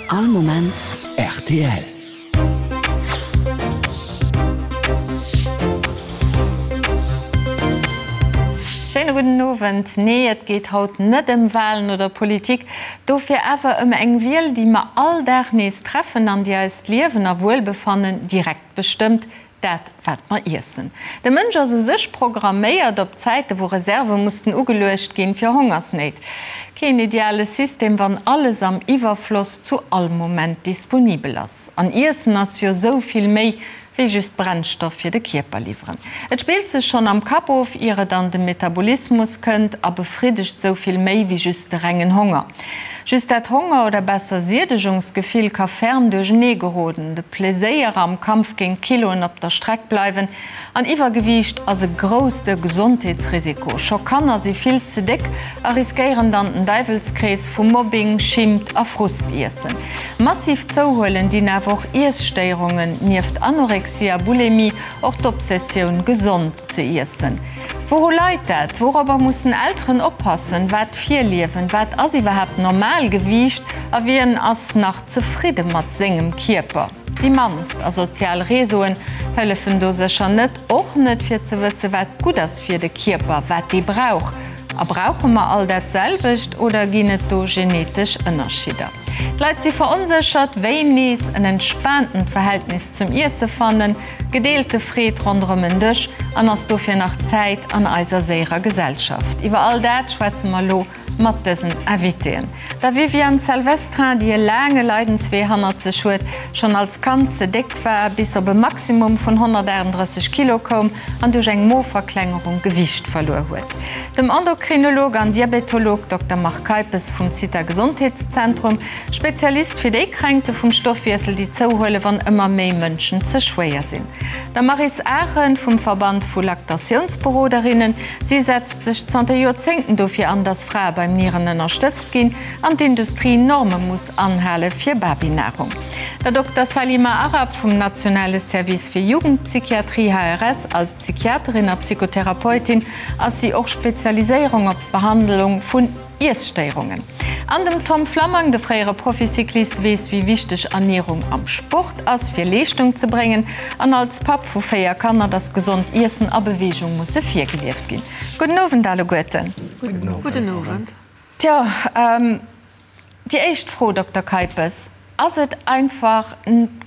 All Moment rtl. Schéine gudden Owend. Nee, et geet haut net ëm Walen oder Politik, dofir awer ëm eng Wiel, déi mer all Dag nees treffen an déi eist Liewen a Wuelbefannen direkt bestëmmt, Dat, wat mer iessen. De Mënsch ass u sech programméiert op Zäite wou Reserve mussten ugeluecht ginn fir Hongersnéit. Keen ideale System, wann alles am Iwwerfloss zu all Moment disponibel ass. An Iessen ass jo sou vill méi wéi just Brennstoff fir de Kierper liwweren. Et spillt sech schonn am Kapp of, ier et an de Metabolismus kënnt a befriddegt sou vill méi wéi just de rengen Honger. Just dat Honger oder besser Siedegungsgefill ka ferm duerchenee geroden, de Pleséier am Kampf géint d'Kiloen op der Streck bleiwen an Iwwergewiicht ass e grousste Gesondheetsrisiko. Scho Kanner si vill ze déck a riskéieren dann den Däiwelskrees vu Mobbing, Schimmt a Frustiessen. Massiv zouhuelen dinn awer och Iesstéierungen, nieft Anorexie a Bulimie och d'Obsessioun gesond ze iessen. Wouru leit dat? Wourobber mussen Elteren oppassen? Wat virliewen? Wat ass iwwerhaapt Normalgewiicht? A wien ass nach zefridde mat sengem Kierper? Déi mannst. A sozial Réseauen hëllefen do sécher net. Och net fir ze wësse wat gutt ass fir de Kierper, wat dee brauch. A brauche mer all dat selwecht oder ginn et do genetesch Ënnerschidder? D'Leit si veronséchert, wéi nees en entspaantent Verhältnis zum Iesse fannen. Gedeelte Freed ronderëm en Dësch an ass dofir nach Zäit an eiser séierer Gesellschaft? Iwwer all dat schwätze mer elo mat dësen Invitéen. Der Viviane Salvestrin, déi e laange Leidenswee hannert sech huet, schonn als Kand ze déck war, bis op e Maximum vun 138 Kilo koum an duerch eng Moverklengerung Gewiicht verluer huet. Dem Endokrinolog an Diabetolog Dokter Marc Keipes vum Zitha Gesondheetszentrum, Spezialist fir déi Kränkte vum Stoffwiessel, déi zouhuelen, wann ëmmer méi Mënschen ze schwéier sinn. Der Maryse Arendt vum Verband vu Laktatiounsberoderinnen. Si setzt sech zanter Joerzéngten dofir an, datt Frae beim Nieren ënnerstëtzt ginn an d'Industrie Norme muss anhale fir Babynahrung. Der Dokter Salima Arab vum nationale Service fir Jugendpsychiatrie, HRS, als Psychiaterin a Psychotherapeutin ass si och Spezialiséierung op d'Behandlung vun. Iesstéierungen. An dem Tom Flammang, de fréiere Proficyclist, weess wéi wichteg Ernierung am Sport ass fir Leeschtung ze bréngen an als Papp vu 4 Kanner, dass gesond Iessen a Beweegung musse virgelieft ginn. Gudden Owend alleguerten. Gudden Owend. Tjo, déi éischt Fro, Dokter Keipes, Ass et einfach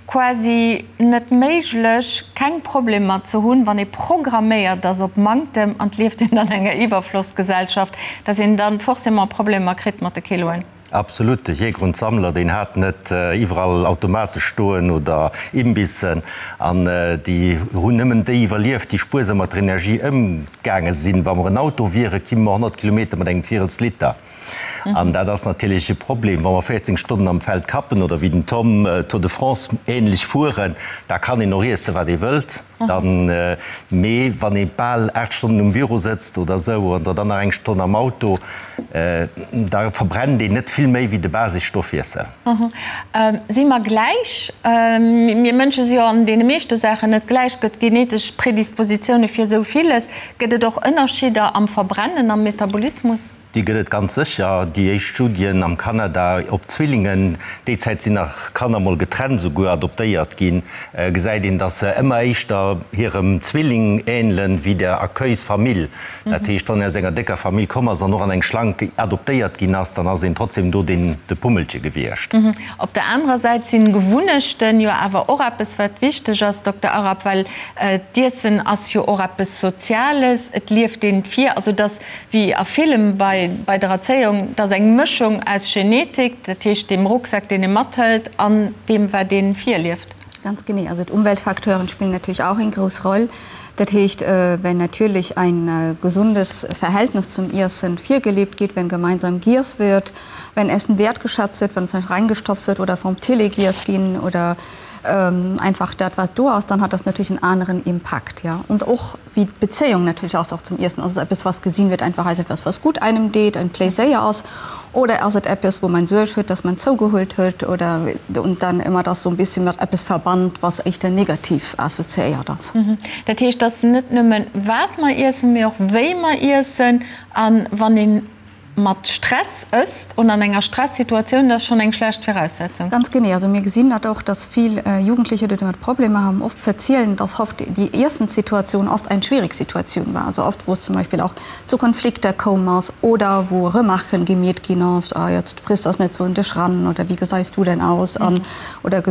quasi net méiglech, keng Problemer ze hunn, wann ee programméiert ass op Manktem an et lieft een an enger Iwwerflossgesellschaft, dass een dann forcément Problemer kritt mat de Kiloen? Absolut. De Jäger und Sammler, deen hat net iwwerall Automate stoen oder Imbissen an déi hunn nëmmen déi iwwerlieft, déi spuersam mat der Energie ëmgaange sinn. Wa mer en Auto wieren, kimme mer 100 Kilometer mat engem Virels Liter. An dat ass natierlech e Problem, wa mer 14 Stonnen am Feld kappen oder wéi den Tom Tour de France ähnlech fueren, da kann een och iessen, wat ee wëllt. Dann, mee wann ee bal 8 Stonnen um Büro sëtzt oder esou an dann nach eng Stonn am Auto, da verbrennt een net vill méi wéi de Basisstoffwiessel. Si mer gläich? Mir Mënsche si jo an deene meeschte Saachen net gläich. Et gëtt genetesch Predispositioune fir esou villes. Gëtt et och Ënnerscheeder am Verbrennen, am Metabolismus? Déi gëtt et ganz sécher. Déi éischt Studien am Kanada op Zwillingen, déi Zäit sinn nach Kanner mol getrennt esouguer adoptéiert ginn, gesäit een, datt se ëmmer éischter hirem Zwilling änelen wéi der Accueilsfamill. Dat heescht, wann een aus enger décker Famill komm ass an och an eng schlank adoptéiert ginn ass, dann ass een trotzdem do deen de Pummelche gewiescht. Op der anerer Säit sinn Gewunnechten jo awer och eppes wat wichteg ass, Dokter Arab, well d'Iessen ass jo och eppes Soziales, et lieft een vir, also datt wéi a villem bei bei der Erzéiung, et ass eng Mëschung aus Genetik, dat heescht deem Rucksak, deen ee mathëlt, an deem, wat ee virlieft. Ganz genee. Also d'Umweltfacteuren spillen natürlich auch eng grouss Roll. Dat heescht, wenn natürlich ein gesundes Verhältnis zum Iessen virgelebt geht, wenn gemeinsam giess wird, wenn Essen wertgeschätzt wird, wenn es nicht reingestopft wird oder vorm Tele giess ginn oder einfach dat wat do ass, dann hat das natürlich en aneren Impakt, ja. Und och wéi d'Bezéiung natierlech ass och zum Iessen. Ass et eppes was gesinn wird einfach als etwas was gut einem deet, en Pléiséier ass, oder ass et eppes wou man Suerg huet, dass man zougehuelt huet oder und dann ëmmer das sou en bisschen mat eppes verbannt, was éischter negativ assoziéiert ass. Dat heescht, et ass net nëmmen wat mer iessen, mee och wéi mer iessen a wann een. mat Stress ësst oder an enger Stressituatioun, dat ass schonn eng schlecht Viraussetzung. Ganz genee. Also mir gesinn dat och, dass vill Jugendliche, déi domat Problemer haben, oft verzielen, dass oft déi Iessenssituatioun oft eng schwierig Situatioun war. Also oft, wou es zum Beispill och zu Konflikter koum ass oder wou Remarquen gemeet ginn ass, ah jetzt friss das net sou un dech ran oder wie geseis du denn aus an oder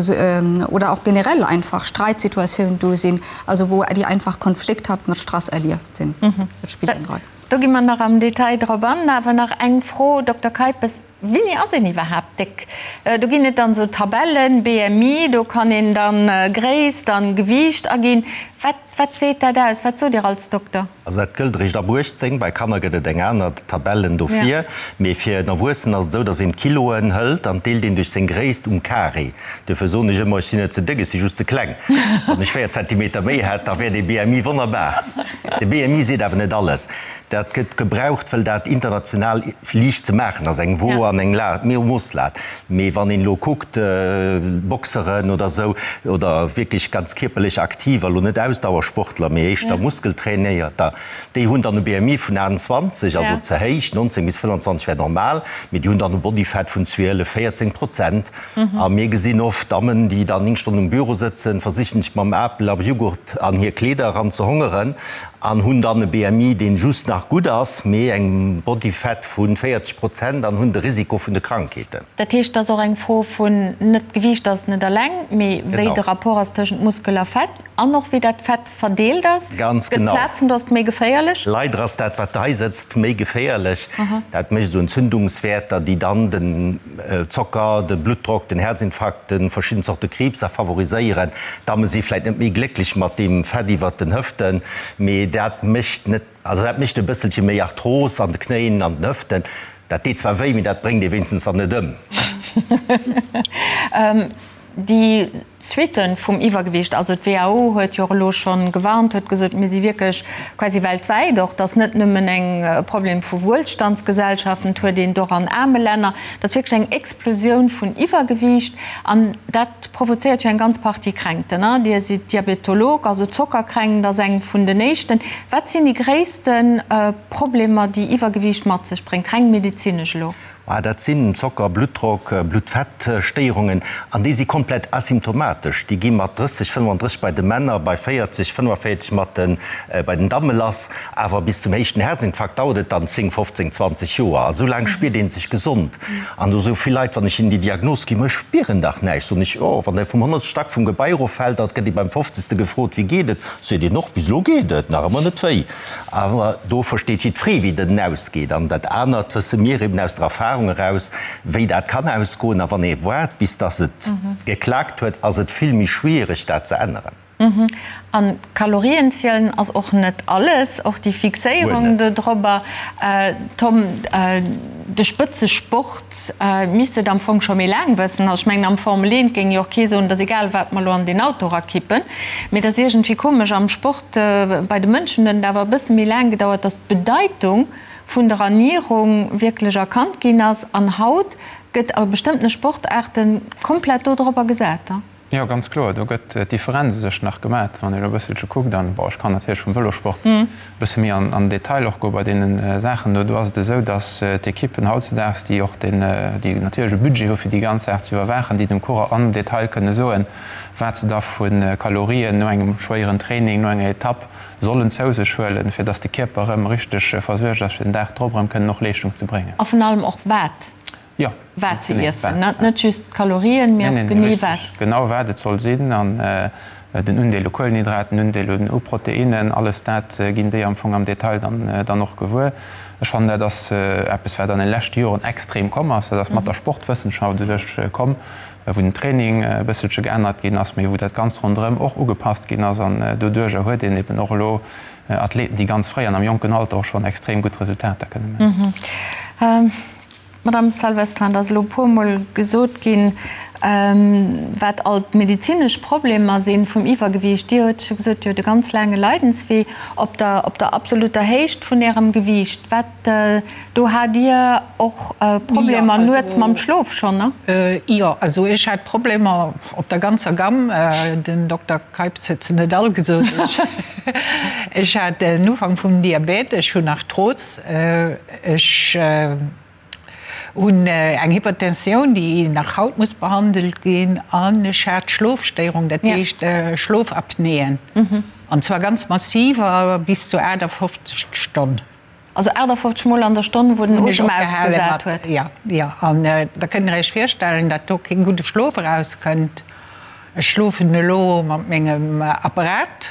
oder och generell einfach Streitsituatiounen do sinn, also wou déi einfach konflikthaft mat Stress erlieft sinn. Dat spillt eng Roll. Do gi mer nach am Detail drop an. Awer nach eng Fro, Dokter Keipes, Wéini ass een iwwerhaapt déck? Do ginn et dann esou Tabellen, BMI, do kann een dann Gréisst an Gewiicht aginn. Wat, wat seet dat aus? Wat sot Dir als Dokter? Also dat gëllt eréischt ab 18. Bei Kanner gëtt et eng aner Tabellen dofir. Mee fir en Erwuessenen ass et esou, datt een d'Kiloen hëlt an deelt een duerch seng Gréisst um Carré. Duerfir soen ech ëmmer, ech sinn net ze déck, ech si just ze kleng. Wann ech 4 Zentimeter méi hätt, da wär dee BMI wonnerbar. De BMI seet awer net alles. Dat gëtt gebraucht, wëll dat international liicht ze maachen ass, eng Wo an eng La, Moosslat. Mee wann een elo kuckt, Boxeren oder esou, oder wierklech ganz kierperlech Aktiver, elo net Ausdauersportler, mee éischter Muskeltrainéierter, déi hunn dann e BMI vun 28, also ze héich, 19 bis 25 wär normal, mee déi hunn dann e Bodyfat vun 12, 14 Prozent. A mir gesinn oft Dammen, déi dann 9 Stonnen um Büro sëtzen, versichen sech mam Apel a Jughurt an hir Kleeder eran ze hongeren an hunn dann e BMI, deen just nach gutt ass, mee eng Body Fat vu 40 Prozent an hunn de Risiko vun de Krankheeten. Dat heescht, et ass och eng Fro vun, net d'Gewiicht ass net eleng, mee wéi de Rapport ass tëschent Muskel a Fett an och wéi dat Fett verdeelt ass. Ganz genau. Gëtt Plazen, do ass et méi geféierlech? Leider ass dat, wat hei sëtzt, méi geféierlech. Dat mécht esou Entzündungswäerter, déi dann den Zocker, de Bluttdrock, den Herzinfarkt, de verschidden Zorte Kriibs a favoriséieren. D'Damme si vläit net méi glécklech mat deem Fett iwwert den Hëften, mee dat mécht net, also dat mécht e bësselche méi Arthros an de Knéien, an den Hëften. Dat deet zwar wéi, mee dat bréngt ee wéinstens dann net ëm. Déi Suitten vum Iwwergewicht, also d'WHO huet jo och elo scho gewarnt, huet gesot, mir si wierklech quasi weltwäit och, et ass net nëmmen eng Problem vu Wuelstandsgesellschaften, et huet een et och an aarme Länner, et ass wierklech eng Explosioun vun Iwwergewicht an dat provozéiert jo eng ganz Partie Kränkten. Dir sidd Diabetolog, also Zockerkränkt ass eng vun den éischten. Wat sinn déi gréisste Problemer, déi Iwwergewicht mat sech bréngt, reng medezinesch elo? Ah, dat sinn Zocker, Bluttdrock, Bluttfettstéierungen, an déi si komplett asymptomatesch. Déi gi mat 30, 35 bei de Männer, bei 40, 45 mat de bei den Damme lass. Awer bis zum éischten Herzinfarkt dauert et dann 10, 15, 20 Joer. A sou laang spiert ee sech gesond. An do soe vill Leit, wann ech hinnen déi Diagnos ginn, Ma ech spieren dach näischt. Soen ech, Jo, wann Der vum honnertste Stack vum Gebai eroffält, da gëtt ee beim fofzegste gefrot, Wéi geet et? Seet een och, Bis elo geet et nach ëmmer net wéi. Awer do versteet jiddweree, wéi den ausgeet. An dat anert wësse mir eben aus der Erfahrung eraus, wéi dat kann ausgoen. A wann ee waart, bis dass et geklaakt huet, ass et vill méi schwierig, dat ze änneren. An d'Kalorien zielen ass och net alles, och déi Fixéierung dodrobber. Tom, de Spëtzesport misst et am Fong scho méi laang wëssen. Also ech mengen, am Formel 1 géing jo och kee soen, et ass egal, wat mer elo an deen Auto erakippen. Mee et ass iergendwéi komesch, am Sport, Bei de Mënschen huet et awer e bësse méi laang gedauert, datt d'Bedeitung vun der Ernierung wierklech erkannt ginn ass. An haut gëtt a bestëmmtene Sportaarte komplett do dorobber gesat. Jo, ganz kloer. Do gëtt d'Differenz u sech nach gemat. Wann ee elo e bësselche kuckt, an bon, ech kann natierlech vum Vëlosport e bësse méi an den Detail och goe bei deene Saachen do, do ass et esou, datt d'Ekippen hautzudaags, déi och den, déi natierlech e Budget hu fir déi ganz Saach ze iwwerwaachen, déi dem Coureur am Detail kënne soen, wat se da vu Kalorien no engem schwéieren Training, no enger Etapp sollen zou sech huelen, fir dass de Kierper erëm richteg versuergt ass, fir den Dag drop erëm kënnen och Leeschtung ze bréngen. A vun allem och wat, Jo, wat se iessen, net just d'Kalorien, mee och genee wat. Richteg, genau wat et soll sinn an den Undeel u Kuelenhydraten, den Undeel u Proteinnen, alles dat ginn déi am Fong am Detail dann och gewuer. Ech fannen, dat ass eppes, wat an de leschte Joren extrem komm ass. Dat ass mat der Sportwëssenschaft u sech komm. wou den Training e bësselche geännert ginn ass, mee wou dat Ganzt ronderëm och ugepasst ginn ass. An doduerjer huet een eben och elo Athleten, déi ganz fréi an am jonken Alter och schonn extrem gutt Resultater kënne maachen. Madame Salvestrin, et ass elo e puermol gesot ginn, wat all d'medezinesch Problemer si vum Iwwergewiicht. Dir hutt scho gesot, Dir hutt e ganz laange Leidenswee op der, op der absoluter Héicht vun Ärem Gewiicht. Wat, do hat Dir och Problemer nuets mam Schlof schonn, ne? Jo, also ech hat Problemer op der ganzer Gamm. Den Dokter Keips huet se net all gesot. Ech hat den Ufank vum Diabète, ech hunn Arthros, Ech hunn eng Hypertensioun, déi nach haut muss behandelt ginn, an ech hat Schlofstéierung, dat heescht Schlofapnéen, an zwar ganz massiver, bis zu 58 d'Stonn. Also 58 Mol an der Stonn, wou den Otem ausgesat huet? Jo, jo. An da kënnt Der Iech virstellen, datt do kee gudde Schlof erauskënnt. Ech schlofen elo mat mengem Apparat.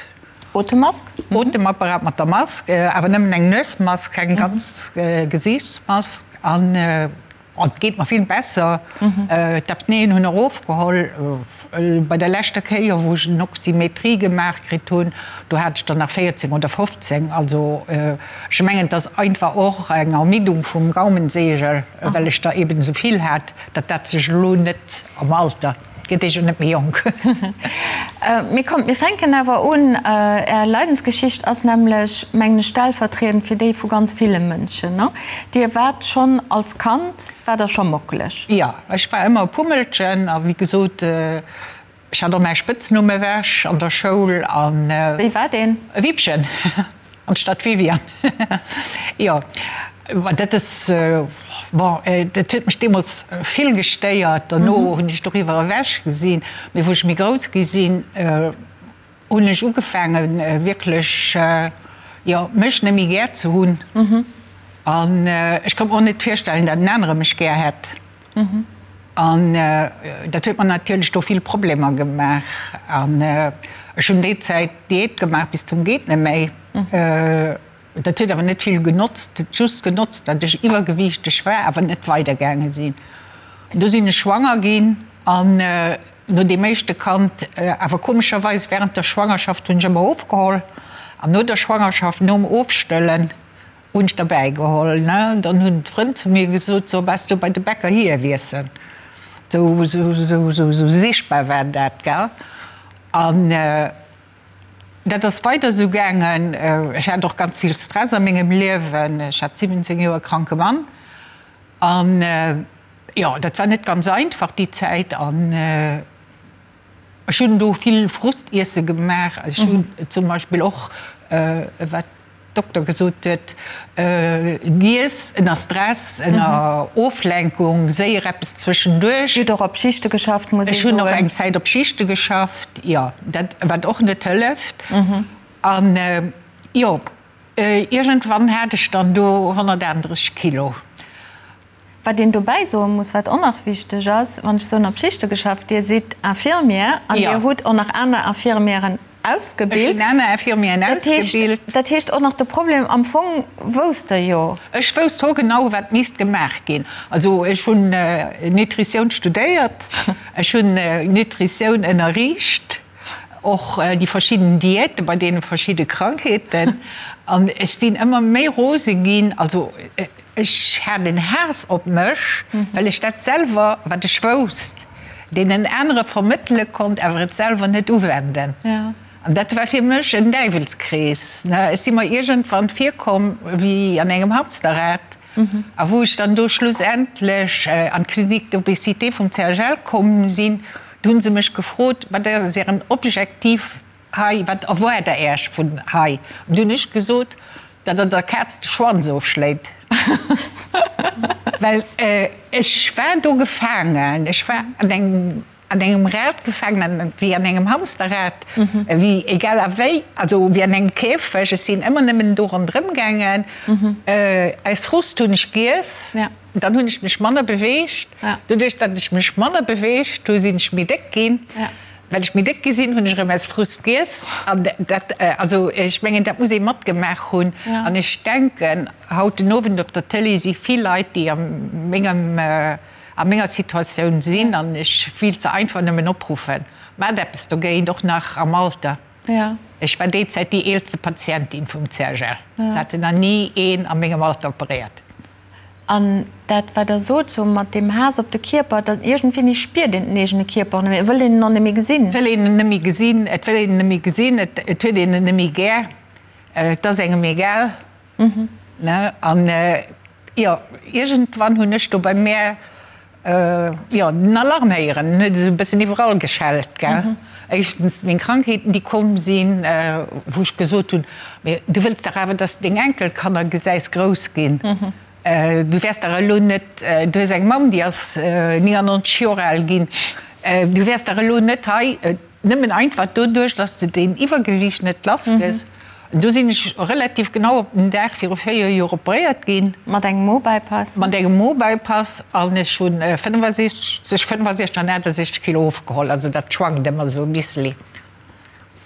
Otemmask? Otemapparat mat der Mask, awer nëmmen eng Nuesmask, keng ganz Gesiichtsmask. An et geet mer vill besser. D'Apnéen hunn erofgeholl. Bei der leschter Kéier, wou ech en Oxymetrie gemaach kritt hunn, do hat ech der nach 14 oder 15. Also ech mengen, et ass einfach och eng Ermiddung vum Gaumensegel, well ech der eben esou vill hat, datt dat sech elo net am Alter. Gëtt ee jo net méi jonk. Mee kommt, mir fänken awer un. Är Leidensgeschicht ass nämlech, mengen ech, stellvertriedend fir déi vu ganz ville Mënschen, ne? Dir waart schonn als Kand, waart Der scho mockeleg? Jo, ech war ëmmer e Pummelchen a wéi gesot, ech hat och mäi Spëtznumm ewech an der Schoul an. Wéi war deen? Wippchen. Anstatt Viviane. Jo, ma dat ass, bon, dat huet mech deemools vill gestéiert. Derno hunn ech doriwwer ewech gesinn. Mee wou ech méi grouss gi sinn, hunn ech ugefaangen, wierklech, jo, mech net méi gär ze hunn. An ech konnt mer och net virstellen, datt en anere mech gär hätt. An dat huet mer natierlech do vill Problemer gemaach. An ech hunn déi Zäit Diät gemaach bis zum geet net méi. Dat huet awer net vill genotzt. Et huet just genotzt, datt ech iwwergewiichteg war, awer net weidergaange sinn. Du sinn ech schwanger ginn an no deem éischte Kand, awer komescherweis während der Schwangerschaft hunn ech ëmmer ofgeholl an no der Schwangerschaft, nom Ofstëllen, Hunn ech derbäi geholl, ne? Dann hunn d'Frënn zu mir gesot, So, bass du bei de Bäcker hier wiessen? Sou, sou, sou, sou, sou sichtbar war dat, gell? An dat ass weider sou gaangen. Ech hat och ganz vill Stress a mengem Liewen. Ech hat 17 Joer kranke Mann. An jo, dat war net ganz einfach déi Zäit. An Ech hunn do vill Frustiesse gemaach. Ech hunn zum Beispill och, wat d'Dokter gesot huet, giess ënner Stress, ënner Oflenkung, séier eppes zwëschenduerch. Dir hutt och op Schichte geschafft, muss ee soen. Ech hunn och eng Zäit op Schichte geschafft, jo, dat, wat och net hëlleft. An jo, iergendwann hat ech dann do 138 Kilo. Wat een dobäi soe muss, wat och nach wichteg ass, wann ech soen op Schichte geschafft, Dir sidd Infirmière an Dir hutt och nach aner Infirmièren ausgebilt. Ech hunn aner Infirmièren ausgebilt. Dat heescht och nach de Problem, am Fong wousst Der jo. Ech wousst hoergenau, wat misst gemaach ginn. Also ech hunn Nutritioun studéiert, ech hunn Nutritioun ënnerriicht, och déi verschidden Diäte bei deene verschidde Krankheeten. An ech sinn ëmmer méi rose ginn. Also Ech hat en Haass op mech, well ech dat selwer, wat ech wousst, deenen anere vermëttele konnt, awer et selwer net uwenden. An dat war fir mech en Däiwelskrees. Ech si mer iergendwann virkomm wéi an engem Hamsterrad. A wou ech dann do schlussendlech an d'Clinique d'obésité vum CHL komm sinn, do hu se mech gefrot, Wat ass Ären Objektiv hei, wat erwaart Der Äech vun hei? An du hunn ech gesot, Datt Der der Kaz de Schwanz ofschléit. Well ech war do gefaangen, ech war an engem, an engem Rad gefaangen, wéi an engem Hamsterrad, wéi egal a wéi, also wéi an engem Käfeg. Ech sinn ëmmer nëmmen do ronderëm gaangen. Aus Frust hunn ech giess, dann hunn ech mech manner beweegt. Doduerch, datt ech mech manner beweegt hu, sinn ech méi déck ginn. Well ech méi déck gi sinn, hunn ech erëm aus Frust giess. An dat, also ech mengen, dat muss ee matgemaach hunn. An ech denken, haut den Owend op der Tëlee si vill Leit, déi a mengem, a menger Situatioun sinn. An ech wéilt se einfach nëmmen opruffen, Maacht eppes dogéint, och nach am Alter. Ech war déi Zäit déi eelste Patientin vum CHL. Se haten nach ni een a mengem Alter operéiert. An dat, wat Der sot, sou mat deem Haass op de Kierper, dat iergendwéini spiert een den eegene Kierper och net méi, et wëllt een en och net méi gesinn. Et wëll een en net méi gesinn, et wëll een en net méi gesinn, et huet een en net méi gär, et ass engem egal. Ne? An jo, iergendwann hunn ech do bei mär jo den Alarm héieren, en huet esou e bëssen iwwerall geschellt, gell. Éischtens meng Krankheeten, déi komm sinn, wou ech gesot hunn, Mee du wëlls dach awer, dass de deng Enkelkanner gesäis grouss ginn. Du wäers dach elo net, du hues eng Mamm, déi ass 99 Joer al ginn, du wäers dach elo net hei nëmmen einfach doduerch, dass de deen Iwwergewiicht net lass gëss. Do sinn ech relativ genau op den Dag viru 4 Joer operéiert ginn. Mat engem Mo-Bypass? Mat engem Mo-Bypass an ech hunn 65, zwësche 65 an 68 Kilo ofgeholl. Also dat schwankt ëmmer esou e bisseli.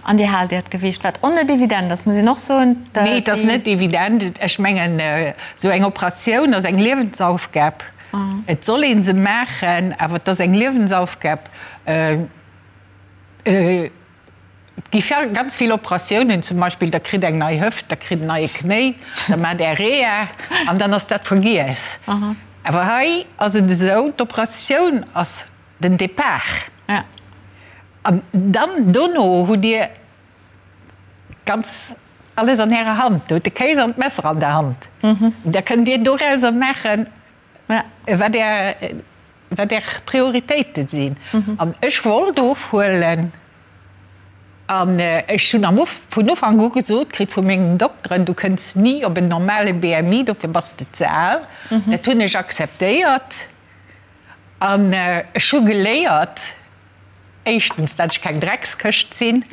An Dir haalt Äert Gewiicht, wat och net evident ass, muss een och soen. Nee, et ass net evident. Ech mengen, esou eng Operatioun ass eng Liewensaufgab. Et soll ee se maachen, awer et ass eng Liewensaufgab. Et gi ganz vill Operatiounen, zum Beispill der kritt eng nei Hëft, der kritt en neie Knéi, da maacht Är Reha an dann ass dat vergiess. Awer hei ass et esou, d'Operatioun ass den Depart an dann dono hutt Dir ganz alles an Ärer Hand. Do hutt de Kéis an d'Messer an der Hand. Da kënnt Dir dorauser maachen, wat Är, wat Är Prioritéite sinn. An ech wollt ofhuelen an ech hunn am Uf, vun Ufank u gesot kritt vu mengen Dokteren, du kënns ni op en normale BMI, dofir bass de ze al. Dat hunn ech akzeptéiert an ech hu geléiert, Éischtens, dat ech keng Dreckskëscht sinn.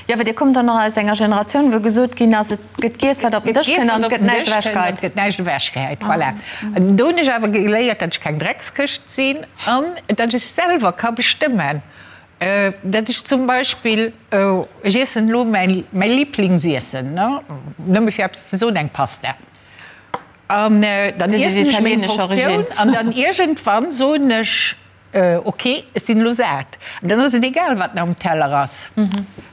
Jo, well Dir kommt dann nach aus enger Generatioun, wou gesot ginn ass, et gëtt giess, wat op den Dësch kënnt an et gëtt näischt ewechgehäit. Et gëtt näischt ewechgehäit, voilà. An do hunn ech awer geléiert, dat ech keng Dreckskëscht sinn an dat ech selwer ka bestëmmen, dat ech zum Beispill, ech iessen elo mäi Liblingsiessen, nëmme fir eppes ze soen, eng Pasta. An dann iessen ech meng Portioun an dann iergendwann soen ech, Ok, ech sinn elo sat. An dann ass et egal, wat nach um Teller ass.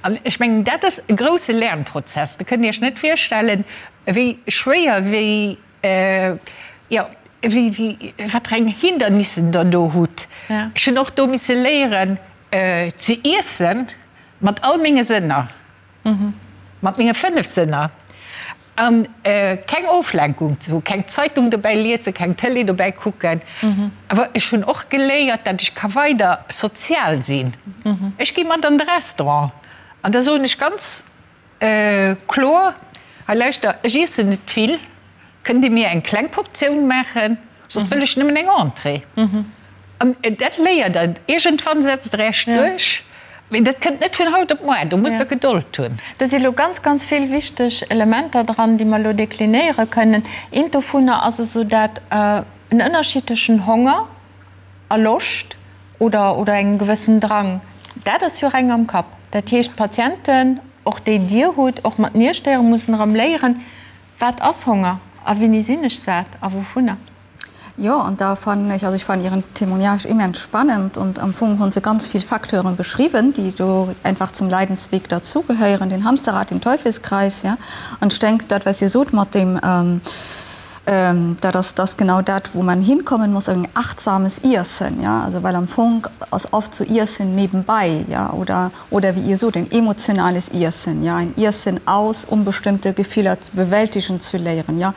An ech mengen, dat ass e grousse Lernprozess. Der kënnt Iech net virstellen, wéi schwéier, wéi, jo, wéi, wéi, wat fir eng Hindernissen Der do hutt. Ech hunn och do misse léieren ze iessen mat all menge Sënner, mat menge 5 Sënner. An keng Oflenkung ze hu, keng Zeitung dobäi liesen, keng Tëlee dobäi kucken. Awer ech hunn och geléiert, datt ech ka weider sozial sinn. Ech gi mat an de Restaurant an da soen ech ganz kloer, Hei lauschter, ech iessen net vill, kënnt Dir mir eng kleng Portioun maachen? Soss wëll ech nëmmen eng Entrée. An dat léiert Der. Iergendwann setzt Der Iech duerch. Mee dat kënnt net vun haut op muar. Do musst Der Gedold hunn. Do si lo ganz, ganz vill wichteg Elementer dran, déi mer elo deklinéiere kënnen. Eent dovunner ass esou dat, en Ënnerschied tëschent Honger a Loscht oder, oder engem gewëssen Drang. Dat ass jo reng am Kapp. Dat heescht, d'Patienten, och déi Dir hutt, och mat Nierstéierung, mussen erëm léieren, Wat ass Honger a wéini sinn ech sat a wouvunner? Jo, an da fannen ech, also ech fannen Ieren Témoignage immens spannend und am Fong hunn se ganz vill Facteuren beschriwwen, déi do einfach zum Leidensweg derzugehéieren, den Hamsterrad, den Teufelskreis, ja. An ech denk, dat wat Dir sot mat deem, dat ass, dat ass genau dat, wou man hinkommen muss, en achtsames Iessen, ja, also well am Fong ass oft sou Iessen nebenbei, ja, oder oder wéi Dir sot, en emotionales Iessen, ja, ein Iessen aus, um bestimmte Gefiller bewältigen zu léieren, ja,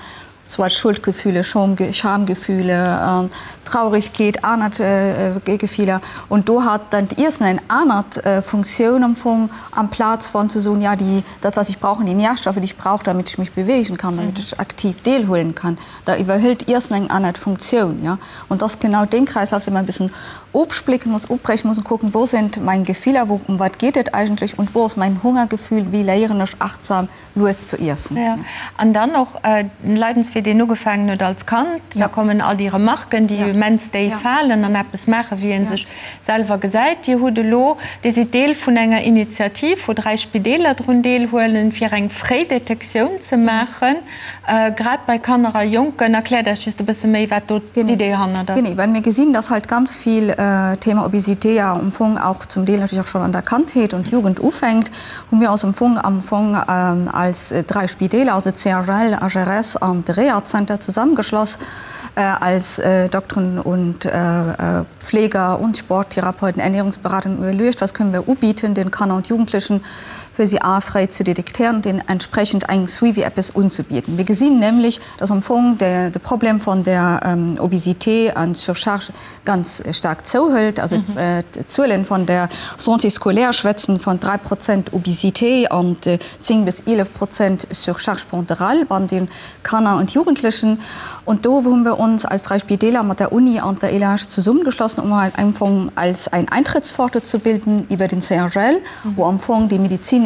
soit Schuldgefühle, Schamgefühle, Traurigkeet, aner Gefiller. Und do hat dann d'Iessen eng anert Funktioun am Fong, amplaz von ze soen, ja, déi, dat was ich brauche, die Nährstoffe, die ich brauche, damit ich mich bewegen kann, damit ich aktiv deelhuelen kann, da iwwerhëlt d'Iessen eng anert Funktioun, ja. Und das ist genau dee Kreislauf, dee man e bëssen ofsplécken muss, ofbrechen muss und kucken, wo sind mein Gefiller, wo, um wat geet et eigentlech und wo ass mein Hungergefühl, wéi léieren ech achtsam lues zu iessen. Jo, an dann och den Leidenswee, deen ugefaangen huet als Kand, da kommen all déi Remarken, déi immens déif falen an eppes maachen, wéi ee sech selwer gesäit. Dir hutt elo, Dir sidd Deel vun enger Initiativ, wou 3 Spideeler drun deelhuelen, fir eng Fréidetektioun ze maachen, grad bei Kanner a Jonken. Erkläert eis just e bësse méi, wat do d'Idee hannert ass. Genee, well mir gesinn, dass halt ganz vill Thema Obésité ja am Fong auch zum Deel natürlich auch schon an der Kandheet und Jugend ufänkt. Hu mir eis am Fong am Fong als 3 Spideeler, also CHL, HRS an de. Rehazenter zusammengeschloss als Dokteren und Pfleger und Sporttherapeuten, Ernährungsberater und iwwerluecht, was können wir ubieten den Kanner und Jugendlichen, fir si a fréi ze detektéieren und deenen entsprechend eng Suivi eppes unzebieden. Mir gesinn nämlech, dass am Fong de Problem von der Obésité an Surcharge ganz staark zouhëlt. Also d'Zuelen von der Santé scolaire schwätzen von 3 Prozent Obésité an 10 bis 11 Prozent Surcharge pondérale bei den Kanner und Jugendlichen. Und do hu wir uns als drei Spitäler mat der Uni an der ELH zesummengeschlossen, um halt am Fong als ein Eintrittspforte zu bilden iwwer den CHL, wou am Fong déi medizinesch,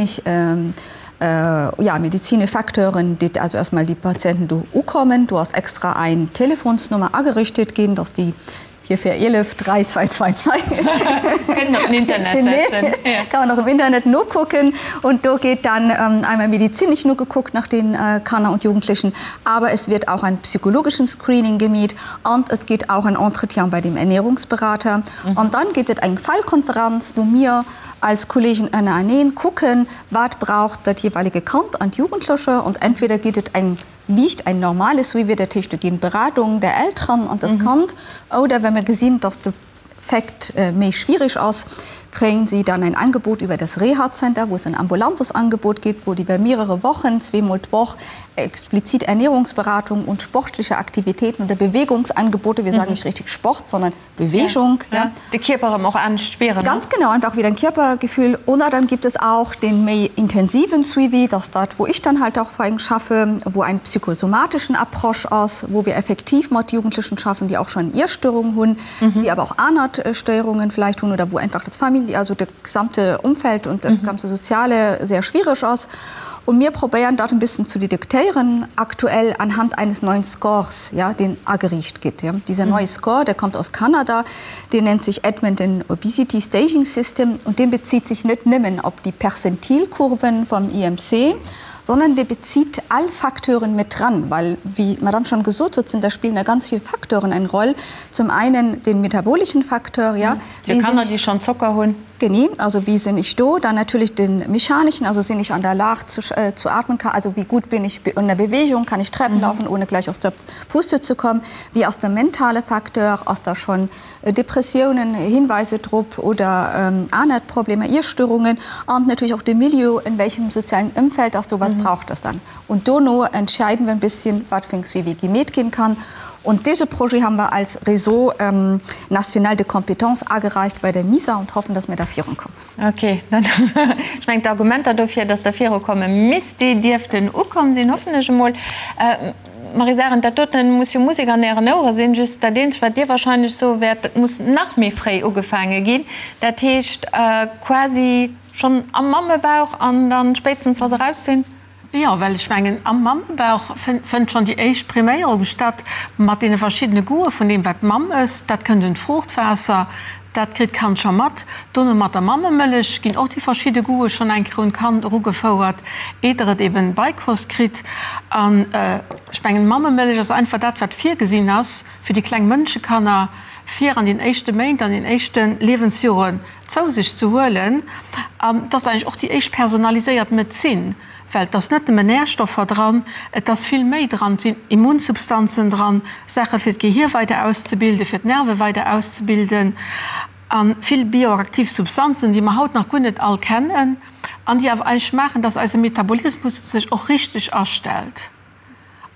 ja, medizinesch Facteuren, déi also erstmal déi Patienten do ukommen. Do ass extra eng Telefonsnummer agerichtet ginn, dass déi 4411 3222. Kënnt op den Internet setzen. Kann man och im Internet nokucken. Und do geet dann einmal medizinesch nogekuckt nach den Kanner und Jugendlichen, aber es wird auch ein psychologischen Screening gemeet und et geet auch ein Entretien bei dem Ernährungsberater. Und dann geet et eng Fallkonferenz, wou mir als Kollegen ënnereneen kucken, wat braucht dat jeweilige Kand an d'Jugendleche. Und entweder geet et eng liicht ein normales Suivi, dat heescht do ginn Beratungen der Elteren an das Kand, oder wa mir gesinn, dass de Fait méi schwierig ass, kréien si dann ein Angebot über das Reha-Center, wou es ein ambulantes Angebot gibt, wou déi iwwer mehrere Wochen, zweemol d'Woch, explizit Ernährungsberatung und sportliche Aktivitäten oder Bewegungsangebote, wir sagen nicht richtig Sport, sondern Bewegung, ja. De Kierper erëm och anescht spieren, ne? Ganz genau, einfach wieder ein Körpergefühl. Oder dann gibt es auch den méi intensiven Suivi, das dat, wou ich dann halt auch vor schaffe, wou ein psychosomatischen Approche ass, wou wir effektiv mat Jugendlichen schaffen, déi auch schon Iesstörungen hunn, déi awer och aner Stéierungen vielleicht hunn oder wou einfach das Famili-, also dat gesamte Umfeld und das ganze Soziale sehr schwierig ass. Und mir probéieren dat en bëssen zu detektéieren, aktuell anhand eines neuen Scores, ja, deen ageriicht gitt. Ja. Dieser neue Score, der kommt aus Kanada, deen nennt sich Edmonton Obesity Staging System und deen bezieht sich net nëmmen op déi Perzentilkurven vom IMC, sondern dee bezieht all Facteuren mit dran, well, wéi d'Madame schon gesot huet, sind da spillen da ganz vill Facteuren eng Roll. Zum einen den metabolischen Facteur, ja, Fir Kanner, déi schonn Zocker hunn. Genee, also wie sinn ich do? Dann natürlich den mechanischen, also sinn ich an der Lag zu, zu atmen, also wie gut bin ich in der Bewegung, kann ich Treppen laufen, ohne gleich aus der Puste zu kommen? Wie ass de mentale Facteur, ass da schonn Depressiounen, Hinweise drop oder aner Problemer, Iesstörungen? An natürlich och de Milieu, in welchem sozialen Ëmfeld ass do, wat braucht das dann? Und dono entscheiden wir en bisschen, wat fir eng Suivi gemeet ginn kann. Und dese Projet haben wir als Réseau national de compétences agereicht bei der MISA und hoffen, dass mir da virunkommen. Ok, dann, ech mengen d'Argumenter dofir, dass Der virukomme misst, déi dierften ukomm sinn, hoffen ech emol. Maryse Arendt, dat doten muss jo Musek an Ären Ouere sinn. Just dat eenzegt, wat Dir wahrscheinlech soe wäert, dat muss nach méi fréi ugefaange ginn. Dat heescht quasi schonn am Mammebauch an dann spéitstens, wa se raus sinn? Jo, well ech mengen, am Mammebauch fënnt schonn déi éischt Priméierung statt, mat deene verschiddene Goûte vun deem, wat d'Mamm ësst. Dat kënnt un d'Fruuchtwaasser, dat kritt d'Kand scho mat. Dono mat der Mammemëllech ginn och déi verschidde Goûte schonn eng Kéier un d'Kand erugefouert, eeder et eben Beikost kritt. An ech mengen, d'Mammemëllech ass einfach dat, wat virgesinn ass fir déi kleng Mënschekanner, fir an den éischte Méint, an den éischte Liewensjoren zou sech ze huelen. An et ass eigentlech och déi éischt personaliséiert Medezin, well et ass net nëmmen Närstoffer dran, et ass vill méi dran, et sinn Immunsubstanzen dran, Saache fir d'Gehier weider auszebilden, fir d'Nerve weider auszebilden a vill bioaktiv Substanzen, déi mer haut nach guer net all kennen an déi awer eigentlech maachen, dass eise Metabolismus sech och richteg astellt.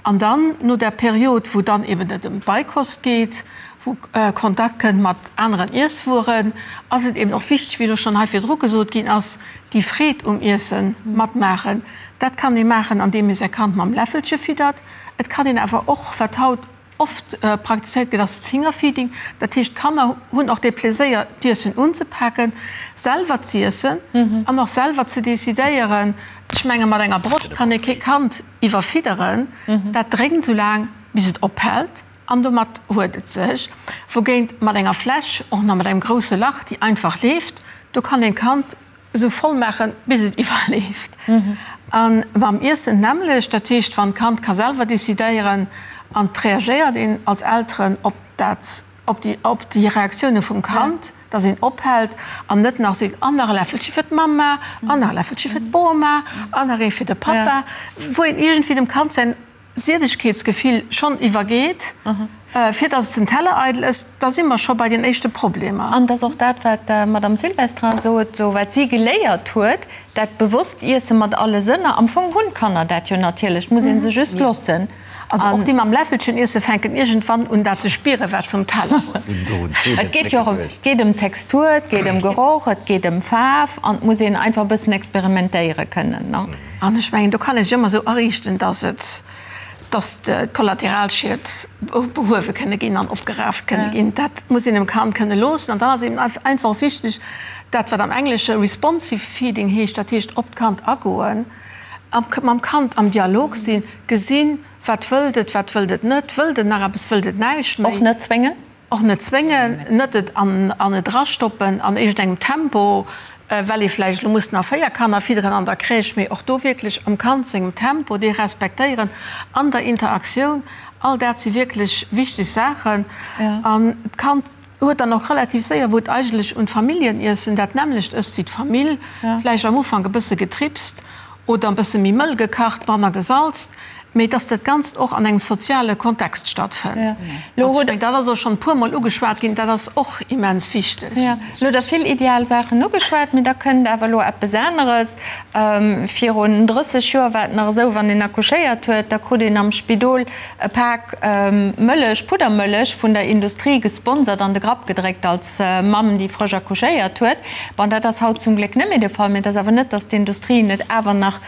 An dann, no där Period, wou dann eben et ëm d'Beikost geet, wou Kontakt kënnt mat aneren Iesswueren, ass et eben och wichteg, wéi elo schonn hei virdru gesot ginn ass, déi Freed um Iesse matmaachen. Dat kann ee maachen, andeem ee säi Kand mam Läffelche fiddert. Et kann een awer och, wat haut oft praktizéiert gëtt, ass d'Fingerfeeding. Dat heescht, d'Kanner hunn och dee Pleséier, d'Iessen unzepaken, selwer z'iessen an och selwer ze decidéieren. Ech menge mat enger Broscht kann ee kee Kand iwwerfidderen, dat drénkt esou laang, bis et ophält an domat huet et sech. Wougéint mat enger Fläsch, och nach mat engem grousse Lach, déi einfach leeft, do kann een d'Kand esou voll maachen, bis et iwwerleeft. A mam Iessen d'nämmlecht, dat heescht, wann d'Kand ka selwer decidéieren an et reagéiert een als Elteren op dat, op déi, op déi Reaktioune vum Kand, dass een ophält an net nach seet, an nach e Läffelche fir d'Mamma, an nach e Läffelche fir d'Boma, an nach ee fir de Pappa, wou een iergendwéi dem Kand säin. Siedegkeetsgefill schonn iwwergeet, fir datt et den Teller eidel ësst, da si mer scho bei den éischte Problemer. An et ass och dat, wat d'Madame Silvestrin sot, esou wat si geléiert huet, dat bewosst Iesse mat alle Sënner. Am Fong hunn d'Kanner dat jo natierlech, et muss ee se just loossen. Also och déi mam Läffelchen iesse fänken iergendwann un dat ze spieren, wat se um Teller hunn. Et geet jo och ëm, et geet ëm Textur, et geet ëm Geroch, et geet ëm Faarf an et muss een einfach e bëssen experimentéiere kënnen, ne? An ech mengen, do kann ee sech ëmmer esou ariichten, dass et, dass d'Kollateralschied behuewe kënne ginn an opgeraaft kënne ginn. Dat muss een dem Kand kënne loossen. An dann ass eben einfach och wichteg, dat wat am Englesche responsive feeding heescht, dat heescht op d'Kand agoen, mam Kand am Dialog sinn, gesinn, wat wëllt et, wat wëllt et net, wëllt et nach eppes, wëllt et näischt méi. Och net zwéngen? Och net zwéngen, net et an et erastoppen an iergendengem Tempo, well ee vläicht elo muss nach 4 Kanner fidderen an der Crèche, mee och do wierklech am Kand sengem Tempo, dee respektéieren, an der Interaktioun. All dat si wierklech wichteg Saachen. An d'Kand huet dann och relativ séier, wou et eigentlech un d'Familljeniessen dat nämmlecht ësst wéi d'Famill, vläicht am Ufank e bësse getripst oder e bësse méi mëll gekacht, manner gesalzt, mee dass dat Ganzt och an engem soziale Kontext stattfënnt. Also ech mengen, dat ass och schonn e puermol ugeschwat ginn, dat ass och immens wichteg. Lo hutt Der vill ideal Saachen ugeschwat, mee da kënnt awer elo eppes aneres. Virun 30 Joer war et nach esou, wann een accouchéiert huet, da krut een am Spidol e Pak Mëllech, Puddermëllech, vun der Industrie gesponsert an de Grapp gedréckt als Mamm, déi frësch accouchéiert huet. Bon, dat ass haut zum Gléck net méi de Fall, mee et ass awer net, datt d'Industrie net awer nach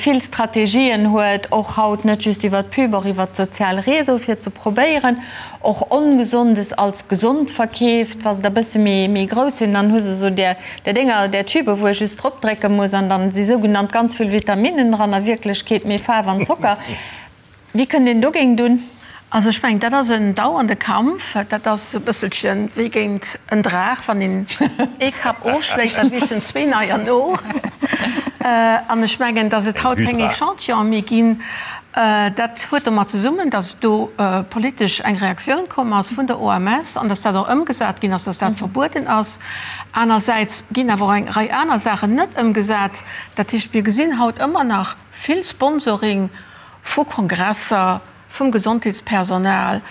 vill Strategien huet, och haut net just iwwert d'Pub, och iwwert d'sozial Réseau, fir ze probéieren, och Ongesondes als gesond verkeeft. Wa se da bësse méi grouss sinn, dann hu se esou där Dénger, där Tübe wou ee just drop drécke muss an dann si sougenannt ganz vill Vitaminnen dran, a Wierklechkeet méi Faarf an Zocker. Wéi kënnt een dogéint un? Also ech mengen, dat ass en dauernde Kampf. Dat ass e bësselche wéi géint en Draach, wann een ee Kapp ofschléit, da wiissen zwee neier no. An ech mengen, datt et haut keng Echantillonen méi ginn, dat huet domat zesummen, datt do politesch eng Reaktioun komm ass vun der OMS an datt dat och ëmgesat ginn ass, datt dat verbueden ass. Anersäits ginn awer och eng Rei aner Saachen net ëmgesat. Dat heescht, mir gesinn haut ëmmer nach vill Sponsoring vu Kongresser, vum Gesondheetspersonal,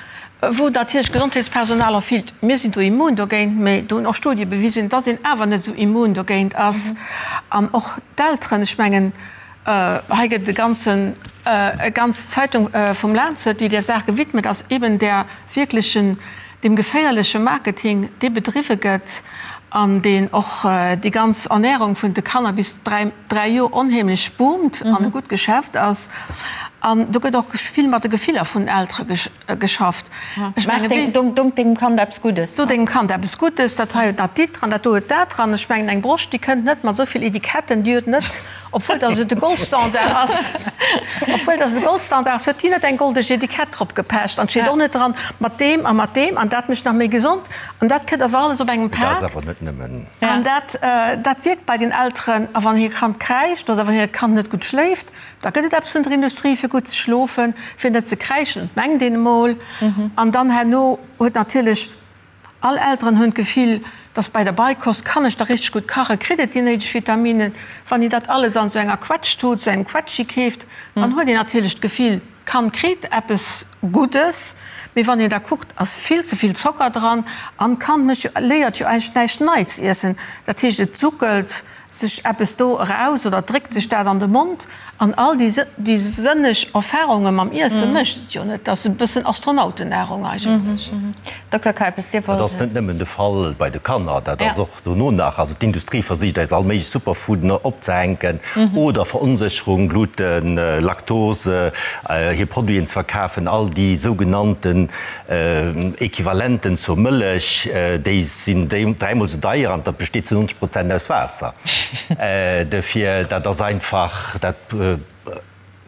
wou natierlech d'Gesondheetspersonal och fillt, mir sinn do immun dogéint, mä do hunn och Studie bewisen, dass een awer net esou immun dogéint ass. An och d'Elteren, ech mengen, hei gëtt et e ganzen, e ganz Zeitung vum Lancet, déi där Saach gewidmet ass, eben där wierklechen, deem geféierleche Marketing, dee bedriwwe gëtt an deen och déi ganz Ernährung vun de Kanner bis 3, 3 Joer onheemlech boomt an e gutt Geschäft ass. An do gëtt och vill mat de Gefiller vun den Eltere geschafft. Ech menge wéi. Dong dengem Kand eppes Guddes. Do dengem Kand eppes Guddes, dat hei huet dat dit dran, dat do huet dat dran. Ech mengen eng Broscht, déi kënnt net mat esou vill Etiketten, déi huet net, obwuel datt et de Goldstandard ass, obwuel datt et de Goldstandard ass, huet déi net eng goldeg Etikett drop gepecht an et steet och net dran, mat deem a mat deem an dat mécht nach méi gesond an dat kënnt awer alles op engem Pak. Dat ass awer net nëmmen. An dat, dat wierkt bei den Elteren. A wann hir Kand kräischt oder wann hiert Kand net gutt schléift, da gëtt et eppes vun der Industrie fir gutt ze schlofen, fir net ze kräischen, mengt een emol. An dann herno huet natierlech, all Elteren hunn d'Gefill, dass bei der Beikost kann ech da richteg gutt kachen, kritt et déi néideg Vitaminen. Wann een dat alles an esou enger Quetsch-Tut, esou engem Quetschi keeft, dann huet een natierlech d'Gefill, D'Kand kritt eppes Guddes, mee wann een da kuckt, ass vill ze vill Zocker dran an d'Kand mécht jo, léiert jo eigentlech näischt Neits iessen. Dat heescht, et suckelt sech eppes do eraus oder dréckt sech dat an de Mond an all déi déi sënneg Erfarunge mam Iesse mécht et jo net. Dat ass e bëssen Astronautennahrung eigentlech. Dokter Keipes, Dir wollt. Dat ass net nëmmen de Fall bei de Kanner, dat ass och Dono nach, also d'Industrie versicht eis all méiglech Superfooden opzehänken oder Veronsécherung, Gluten, Laktose, hir Produiten ze verkafen. All déi sougenannten Equivalenten zur Mëllech, déi sinn dräimol esou deier an dat besteet zu 90 Prozent aus Waasser. Dofir, dat ass einfach, dat.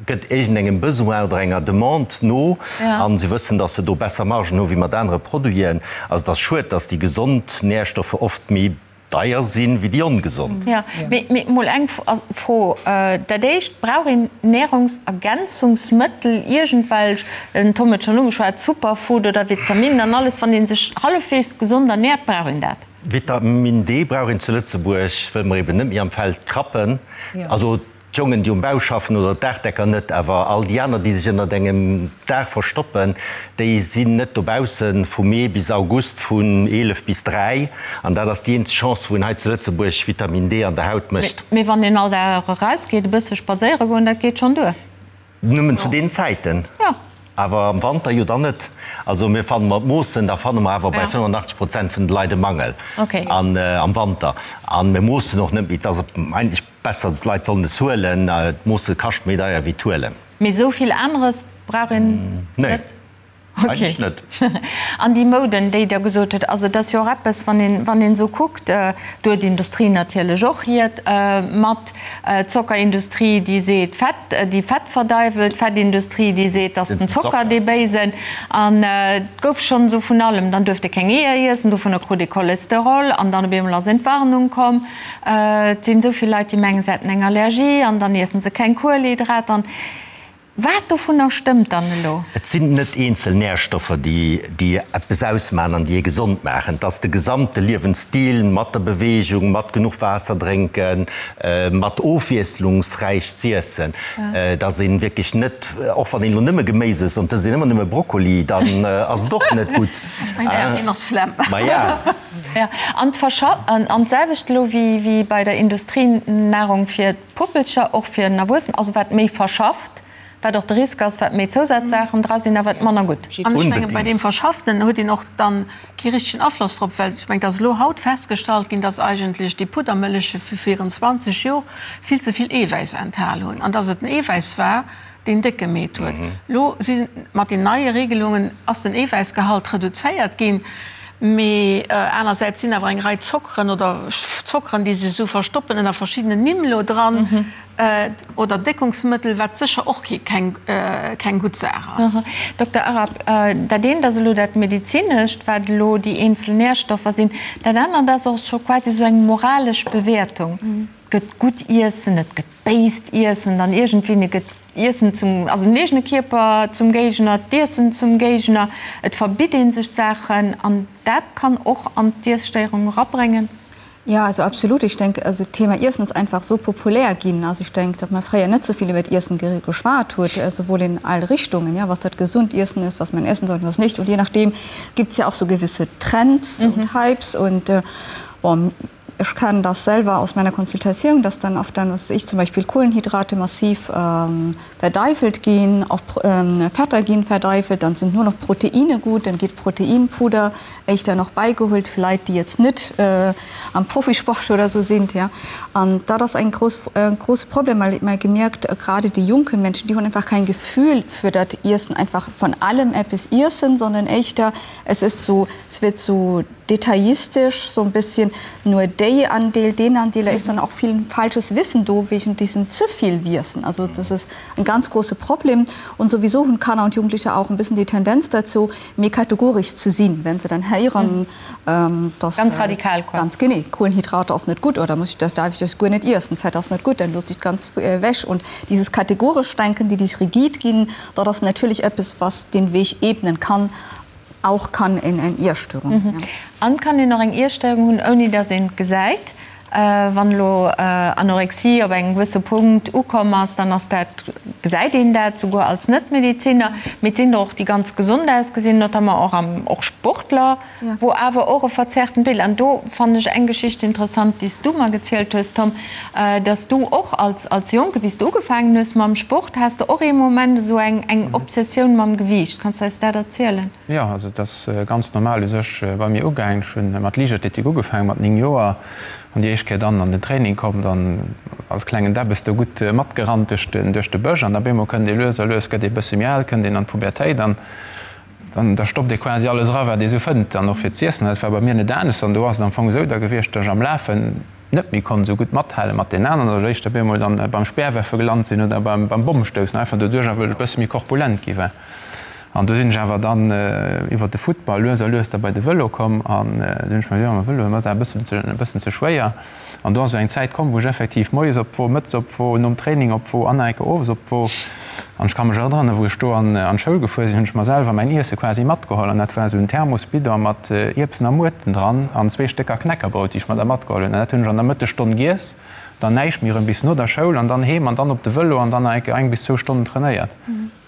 gëtt iergendengem Besoin oder enger Demande no a se wëssen, datt se do besser Margen hu wéi mat anere Produiten. Also et ass schued, datt déi gesond Nährstoffe oft méi deier sinn wéi déi ongesond. Jo, mee mol eng Fro, Dat éischt, brauch een Nährungsergänzungsmëttel, iergendwelch, den Tom huet schonn ugeschwat, Superfood oder Vitaminen an alles, wann ee sech hallefweegs gesond ernährt, brauch een dat? Vitamin D brauch een zu Lëtzebuerg, wëll mer eben net méi am Feld krappen. Also. D'Jongen, déi um Bau schaffen, oder d'Daachdecker net, awer all déi aner, déi sech ënnert engem Daach verstoppen, déi sinn net dobaussen vu Mee bis August vun 11 bis 3. An dat ass déi eenzeg Chance, wou een hei zu Lëtzebuerg Vitamin D an der Haut mécht. Mee wann een all Dag erausgeet, e bësse spadséiere goen, dat geet schonn duer. Nëmmen zu deenen Zäiten. Jo. Awer am Wanter jo dann net. Also mir fanne mer d'Moossen, da fanne mer awer bei 85 Prozent vun de Leit e Mangel am Wanter. A mir moossen och net méi. Et ass eigentlech besser, d'Leit sollen es huelen. D'Moosse kascht méi deier wéi d'Huelen. Mee esou vill aneres brauch een net? Nee, eigentlech net. An déi Mouden, déi Der gesot hutt, also et ass jo och eppes, wann een, wann een esou kuckt, do huet d'Industrie natierlech och hiert mat, d'Zockerindustrie, déi seet Fett, déi Fett verdeiwelt, d'Fettindustrie, déi seet, et ass den Zocker dee Béisen. An et gouf schonn esou vun allem, dann duerft ee keng Eeër iessen, dovunner krut ee Cholesterol an dann op eemol ass Entwarnung komm. Et sinn esou vill Leit, déi mengen, se hätten eng Allergie an dann iessen se keng Kuelhydrater. Wat dovunner stëmmt dann elo? Et sinn net eenzel Närstoffer, déi déi eppes ausmaachen an déi ee gesond maachen. Et ass de gesamte Liewensstil mat der Beweegung, mat genuch Waasser drénken, mat ofwiesslungsräich z'iessen, dass ee wierklech net, och wann een elo nëmme Geméis ësst an et ësst een ëmmer nëmme Brokkoli, dann ass et och net gutt. Ech mengen, da kritt een och d'Flemm. Maja. Jo, an an d'selwecht elo wéi bei der Industrienahrung fir Puppelcher, och fir en Erwuessenen, also wat méi verschafft, wat och de Risk ass, wat méi Zousazsaachen dra sinn a wat manner gutt. An ech menge bei deem Verschafften huet een och dann kee richtegen Afloss drop, well ech mengen, et ass elo haut festgestallt ginn, dass eigentlech déi Puddermëlleche vu virun 20 Jor vill ze vill Eewäiss enthal hunn an dass et den Eewäiss war, deen déck gemeet huet. Elo si mat den neie Regelungen ass den Eewäissgehalt reduzéiert ginn, mee anersäits sinn awer eng Rei Zockeren oder Zockeren, déi sech esou verstoppen ënner verschiddenen Nimm elo dran, oder Déckungsmëttel, wat sécher och keng keng gutt Saach ass. Dokter Arab, dat eent ass elo dat Medezinescht, wat elo déi eenzel Nährstoffer sinn, dat anert ass och scho quasi esou eng moralesch Bewäertung. Et gëtt gutt Iessen, et gëtt béist Iessen, dann iergendwéini gëtt Iessen zum, also den eegene Kierper zum Géigner, d'Iessen zum Géigner, et verbitt ee sech Saachen an dat kann och an d'Iesstéierung erabréngen. Ja, also absolut. Ich denke, also d'Thema Iessen ass einfach sou populär ginn. Also ich denke, datt mer fréier net sou vill iwwert Iessen geschwat huet, souwuel in all Richtungen, ja, was dat gesund Iessen ist, was man essen sollte, was nicht. Und je nachdem gibt's ja auch so gewisse Trends und Hypes und bon, Ech kennen das selwer aus meiner Konsultatioun, dass dann oft dann, was weiß ich, zum Beispiel Kohlenhydrate massiv verdeifelt ginn, och Fetter ginn verdeifelt, dann sind nur noch Proteine gut, dann geet Proteinpuder éischter nach beigeholt fir Leit, déi jetzt net am Profisport oder sou sind, ja. An dat ass eng grouss, e grosse Problem, well mer gemierkt, gerade déi junken Menschen, déi hunn einfach kein Gefühl für dat Iessen, einfach von allem eppes iessen, sondern éischter es ist so, es wird so detaillistisch so ein bisschen nur déi Andeel, deen Andeel, da ist dann auch viel falsches Wissen do wegen diesem ze vill Wiessen. Also das ist ein ganz große Problem und sowieso hunn Kanner und Jugendliche auch ein bisschen die Tendenz dazu, méi kategorisch zu sinn, wenn se dann héieren, dass Ganz radikal quasi. Ganz genee, Kohlenhydrate ass net gutt oder muss ich das, darf ich das guer net iessen, Fett ass net gutt, dann looss ich ganz ewech. Und dieses kategorisch Denken, déi déi rigid ginn, dat ass natierlech eppes, was den Weg ebnen kann Auch kann een eng Iesstörung hunn. An kann een och eng Iesstörung hunn, ouni dass een et gesäit? Wann elo Anorexie op engem gewësse Punkt ukomm ass, dann ass dat, gesäit een dat souguer als Net-Mediziner. Mee et sinn der och, déi ganz gesond ausgesinn, notamment och am, och Sportler, wou awer och e verzerrten Bild. An do fannen ech eng Geschicht interessant, déi s du mer gezielt hues, Tom, dass du och als, als Jonke, wéi s du ugefaangen hues mam Sport, has de och ee Moment esou eng, eng Obsessioun mam Gewiicht. Kanns de eis dat erzielen? Jo, also et ass ganz normal u sech bei mir ugaangen. Ech hunn mat Liichtathletik ugefaangen, mat 9 Joer, an déi éischt Kéier dann an den Training komm, dann als klengen Debbes do gutt matgerannt duerch den, duerch de Bësch an da bemol kënnt ee lues a lues, gëtt ee bësse méi al, kënnt een an d'Pubertéit an dann da stoppt ee quasi alles era wat ee sou fënnt dann och fir z'iessen. Dat war bei mir net anescht an do ass et am Fong esou da gewiescht, datt ech am Lafen net méi konnt esou gutt mathale mat den aneren, datt ech éischter bemol dann beim Speerwerfe gelant sinn oder beim beim Bommstoussen, einfach doduerch wëll ech e bësse méi korpulent gi war. An do sinn ech awer dann iwwer de Futtball lues a lues da bei de Vëlo komm an du hunn ech mer gesot, ma Vëlo ass awer e bëssen e bëssen ze schwéier. An do ass esou eng Zäit komm, wou ech effektiv moies op d'Wo, mëttes op d'Wo, nom Training op d'Wo an nach eng Kéier owes op d'Wo. An ech ka mech erënneren, wou ech do an d'Schoul gefuer sinn, hunn ech mer selwer mäin Iesse quasi matgeholl. An dat war esou en Thermosbidon mat Ierbsen a Muerten dran an zwee Stécker Knäckerbrout, déi ech mer da matgeholl hunn. An dat hunn ech an der Mëttesstonn giess, dann näischt méi erëm bis no der Schoul an dann heem an dann op de Vëlo an dann nach eng Kéier eng bis zwou Stonnen trainéiert.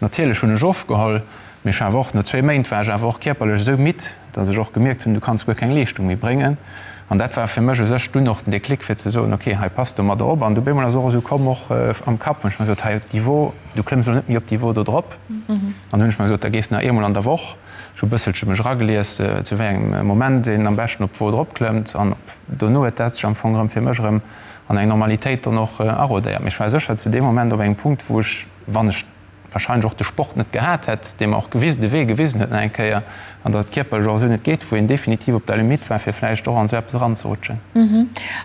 Natierlech hunn ech ofgeholl, mee ech war awer och, no zwee Méint war ech awer och kierperlech esou midd, datt ech och gemierkt hunn, du kanns guer keng Leeschtung méi bréngen. An dat war fir mech u sech dunn och den Déclic fir ze soen, ok, hei pass domadder op. An du bemol ass och esou komm, och am Kapp hunn ech mer gesot, hei op Niveau, du klëmms elo net méi op Niveau do drop. An hunn ech mer gesot, da gees de nach eemol an der Woch. Ech hu bësselche mech eragelies, zu wéi engem Moment een am beschten op d'Wo drop klëmmt. An dono huet dat sech am Fong erëm fir mech erëm an eng Normalitéit dann och arodéiert. Mee ech war sécher zu deem Moment op engem Punkt, wou ech, wann ech wahrscheinlech och de Sport net gehat hätt, dee mer och gewisen, de Wee gewisen huet nach eng Kéier, an datt et kierperlech och esou net geet, wou een definitiv op der Limite war, fir vläicht och an esou eppes eranzerutschen.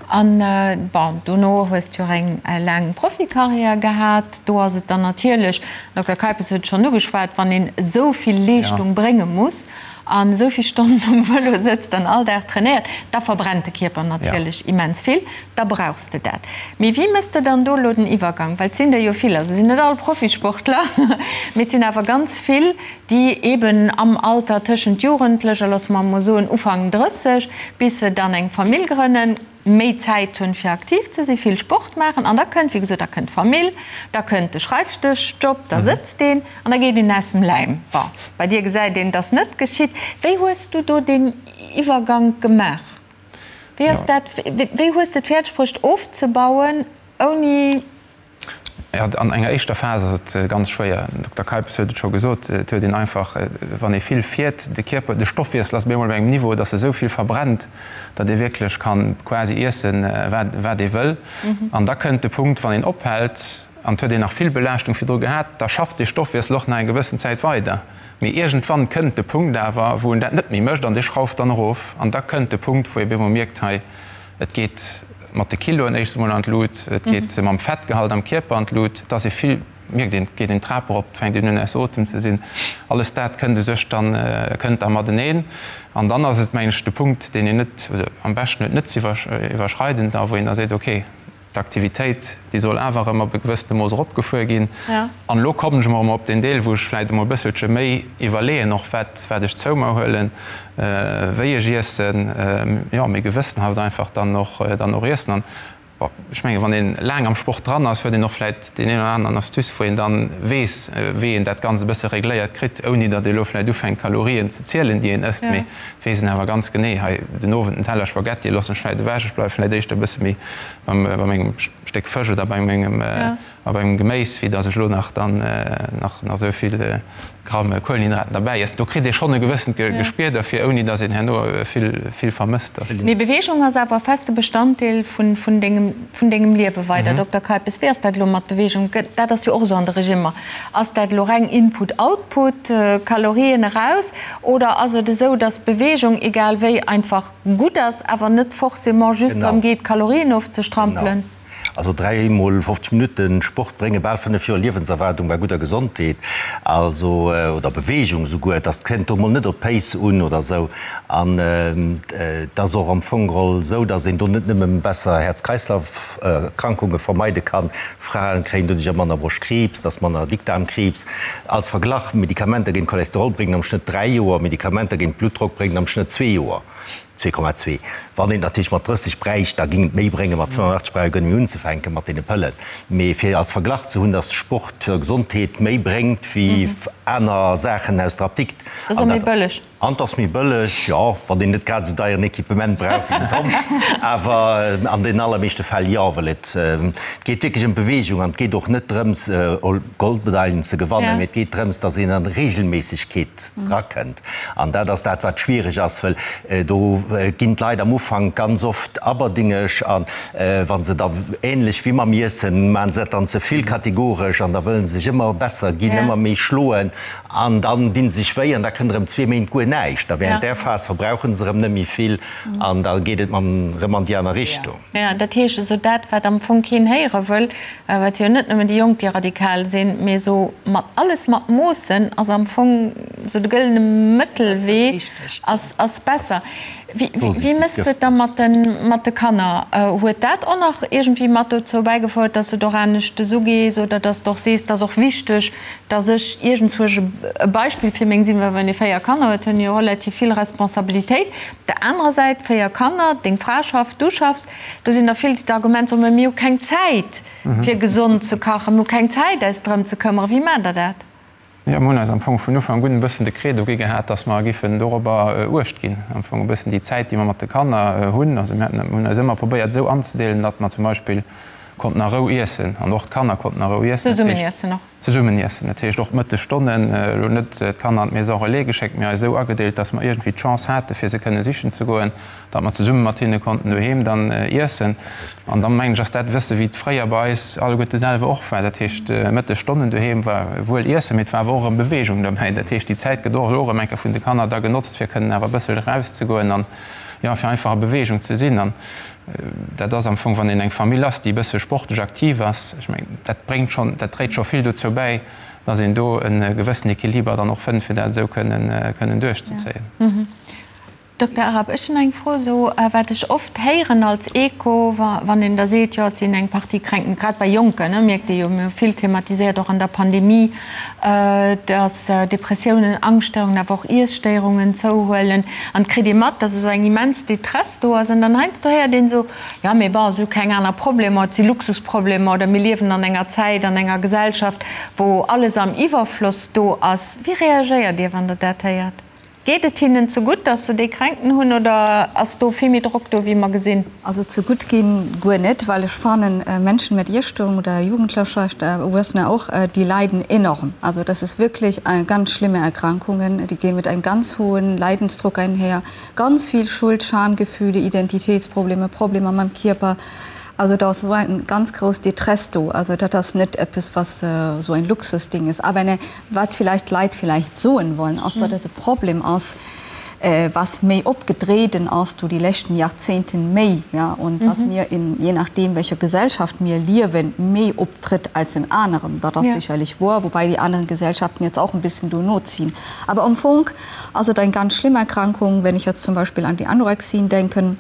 An, bon, dono hues de jo och eng laang Profikarriär gehat. Do ass et dann natierlech, den Dokter Keipes huet et schonn ugeschwat, wann een esou vill Leeschtung brénge muss an esou vill Stonnen um Vëlo sëtzt an all Dag trainéiert, da verbrennt de Kierper natierlech immens vill. Da brauchs de dat. Mee wéi mëss de dann do elo den Iwwergang? Well et sinn der jo vill, also sinn net all Profisportler, mee et sinn awer ganz vill, déi eben am Alter tëschent Jugendlecher, loosse mer emol soen Ufank 30, bis se dann eng Famill grënnen, méi Zäit hunn, fir aktiv ze sinn, vill Sport maachen. An da kënnt, wéi gesot, da kënnt d'Famill, da kënnt de Schreifdëschjob, da sëtzt een an da geet een aus dem Läim. Bon, bei dir gesäit een, dass net geschitt. Wéi hues du do deen Iwwergank gemaach? Wéi ass dat, wéi hues de et fäerdeg bruecht ofzebauen, ouni. Jo, an enger éischter Phas ass et ganz schwéier. Den Dokter Keipes huet et scho gesot, et huet een einfach, wann ee vill fiert, de Kierper, de Stoffwiessel ass op eemol op engem Niveau, datt e sou vill verbrennt, datt ee wierklech ka quasi iessen, wat wat ee wëll. An da kënnt de Punkt, wann een ophält, an et huet een nach vill Belaaschtung virdru gehat, da schafft dee Stoffwiessel och nach eng gewëssen Zäit weider. Mee iergendwann kënnt de Punkt awer, wou en dat net méi mécht an dee schrauft dann erof. An da kënnt de Punkt, wou ee bemol mierkt, hei, et geet mat de Kiloen éischts emol an d'Lut, et geet mam Fettgehalt am Kierper an d'Lut, et ass ee vill, mierkt een, et geet een d'Trap erop, et fänkt een un aus Otem ze sinn. Alles dat kënnt u sech dann, kënnt da mateneen. An dann ass et, mengen ech, de Punkt, deen een net, oder am beschten huet net ze iwwerschreiden, da wou een da seet, okay, D'Aktivitéit, déi soll awer erëm op e gewëssene Mooss eropgefuer ginn. An elo kommen ech emol erëm op deen Deel, wou ech vläicht emol e bësselche méi iwwerleeën och, wat, wat ech zou mer huelen, wéi ech iessen, jo, méi gewëssenhaft einfach dann och, dann och iessen. An, bon, ech mengen, wann ee laang am Sport dran ass, huet een och vläicht deen een oder aneren Astuce, wou een dann weess, wéi een dat Ganzt e bësse regléiert kritt, ouni datt ee elo vläicht ufänkt, Kalorien ze zielen, déi een ësst. Mee et weess een awer ganz genee, hei den Owend en Teller Spaghetti loossen ech vläicht ewech, ech bleiwe vläicht éischter e bësse méi beim bei mengem Stéck Fësch oder bei mengem a bei mengem Geméis, wéi datt ech elo nach dann nach nach esou vill Gramm Kuelenhydraten derbäi iessen. Do kritt ee schonn e gewëssent Gespier derfir, ouni datt een herno vill vill vermësst. Mee Beweegung ass awer e feste Bestanddeel vun vun dengem vun dengem Liewe weider. Dokter Keipes, wéi ass dat elo mat Beweegung? Dat ass jo och esou an de Regimmer. Ass dat elo reng Input-Output, Kalorien eraus, oder ass et esou, datt Beweegung egal wéi einfach gutt ass, awer net forcément just drëm geet, Kalorien ofzestrampelen? Genau. Also 3 mol 50 Minutten Sport brénge bal 5 Joer Liewenserwaardung bei gudder Gesondheet, also oder Beweegung souguer. Et ass, kënnt do mol net op d'Pace un oder esou. An et ass och am Fong geholl esou, datt een do net nëmme besser Häerz-Kreislauf-Erkrankunge vermeide kann, Frae kréien doduercher manner Broschtkriibs, et ass manner Dickdaarmkriibs. Als Verglach, Medikamenter géint Cholesterol bréngen am Schnëtt 3 Joer, Medikamenter géint Bluttdrock bréngen am Schnëtt zwee Joer. 2,2. Wann een natierlech mat 30 bräicht, da géing et méi bréngen, mat 85 brauch ee guer net méi unzefänke mat deene Pëllen. Mee fir als Verglach ze hunn, datt Sport der Gesondheet méi bréngt wéi aner Saachen aus der Apdikt. Dat ass och méi bëlleg. An et ass méi bëlleg, jo, wann een net grad esou deieren Equipement brauch wéi den Tom. Awer an den allermeeschte Fäll jo, well et geet wierklech ëm d'Beweegung an et geet och net drëms, Goldmedailen ze gewannen, mee et geet drëms, datt een an Reegelméissegkeet drakënnt. An dat ass dat, wat schwiereg ass, well do ginn d'Leit am Ufank ganz oft aberdingeg a wa se da, ähnlech wéi mam Iessen, maache se dat dann ze vill kategoresch an da wëlle se sech ëmmer besser ginn, ëmmer méi schloen an dann di se sech wéi an da kënnt erëm zwee Méint guer näischt. A während där Phas verbrauche se erëm net méi vill an da geet et erëm an déi aner Richtung. Jo, dat heescht esou dat, wat am Fong keen héiere wëll, well et si jo net nëmmen déi Jonk, déi radikal sinn, mee esou mat alles mat Moossen ass am Fong esou de gëllene Mëttelwee ass besser. Wéi mëss de et da mat de Kanner? Huet dat och nach iergendwéi mat dozou bäigefouert, dass de et och anescht ugees oder dass de och sees, et ass och wichteg, dass ech iergendzwousch e Beispill fir meng sinn? Well wann ee 4 Kanner huet, hunn ee jo relativ vill Responsabilitéit. Op der anerer Säit, 4 Kanner, deng Fra schafft, du schaffs, do sinn der vill, déi d'Argument soen, mä mir hu keng Zäit fir gesond ze kachen, mir hu keng Zäit eis drëm ze këmmeren. Wéi maacht der dat? Jo, mir hunn eis am Fong vun Ufank un e bëssen de Credo gi gehat, dass mer giffen dorobber Uecht ginn, am Fong e bëssen déi Zäit, déi mer mat de Kanner hunn. Also mir haten, hunn eis ëmmer probéiert esou anzedeelen, datt mer zum Beispill konnten a Rou iessen an och d'Kanner konnten a Rou iessen. Zesummen iessen och. Zesummen iessen. Dat heescht och d'Mëttesstonnen, elo net d'Kanner an d'Maison relais geschéckt, mee eis esou agedeelt, dass mer iergendwéi d'Chance hate fir se kënne sichen ze goen. datt mer zesumme mat hinne konnten doheem dann iessen. An da mengen ech, ass dat e bësse wéi et fréier bei eis alleguerte selwer och war. Dat heescht, Mëttesstonnen doheem war wuel iessen, mee et war awer och erëm Beweegung dobäi. Dat heescht, déi Zäit gëtt och elo erëm eng Kéier vun de Kanner da genotzt, fir kënnen awer e bëssel erauszegoen an, jo, fir einfach a Beweegung ze sinn. An dat ass am Fong, wann een eng Famill ass, déi e bësse sportlech aktiv ass, ech mengen, dat bréngt schonn, dat dréit scho vill dozou bäi, datt een do e gewëssen Equiliber dann och fënnt, fir dat esou kënnen, kënnen duerchzezéien. Dokter Arab, ech hunn eng Fro, esou wat ech oft héieren als Echo, wann een da seet, jo et sinn eng Partie Kränken, grad bei Jonken, mierkt ee jo, mir hu vill thematiséiert och an der Pandemie, datt Depressiounen, Angschtstörungen, awer och Iesstéierungen zouhuelen an et kritt ee mat, datt esou eng immens Détresse do ass an dann heiansdo héiert een esou, jo mee bon, si hu keng aner Problemer, et si Luxusproblemer oder mir liewen an enger Zäit, an enger Gesellschaft, wou alles am Iwwerfloss do ass. Wéi reagéiert Dir, wann Der dat héiert? Geet et hinnen ze gutt, dass se déi Kränkten hunn, oder ass do vill méi Drock do, wéi mer gesinn? Also ze gutt ginn guer net, well ech fannen, Menschen mit Iesstörung oder Jugendlecher, Erwuessener och, die leiden enorm. Also das ist wirklich ganz schlimme Erkrankungen, die gehen mit einem ganz hohen Leidensdruck einher, ganz viel Schuld, Schamgefühle, Identitätsprobleme, Problemer mam Kierper. Also da ass esou eng ganz grouss Détresse do. Also dat ass net eppes, was esou ein Luxusding ist. Aber eine Wat vielleicht d'Leit vielleicht soen wollen, ass, datt et e Problem ass, was méi opgedreden ass do déi leschten Jahrzehnten méi, ja, und was mir in, je nachdem welcher Gesellschaft mir liewen, méi optritt als in aneren. Dat ass sicherlich wohr, wobei déi anderen Gesellschaften jetzt auch en bisschen do noziehen. Aber am Fong ass et eng ganz schlimm Erkrankung, wenn ich jetzt zum Beispiel an die Anorexien denken,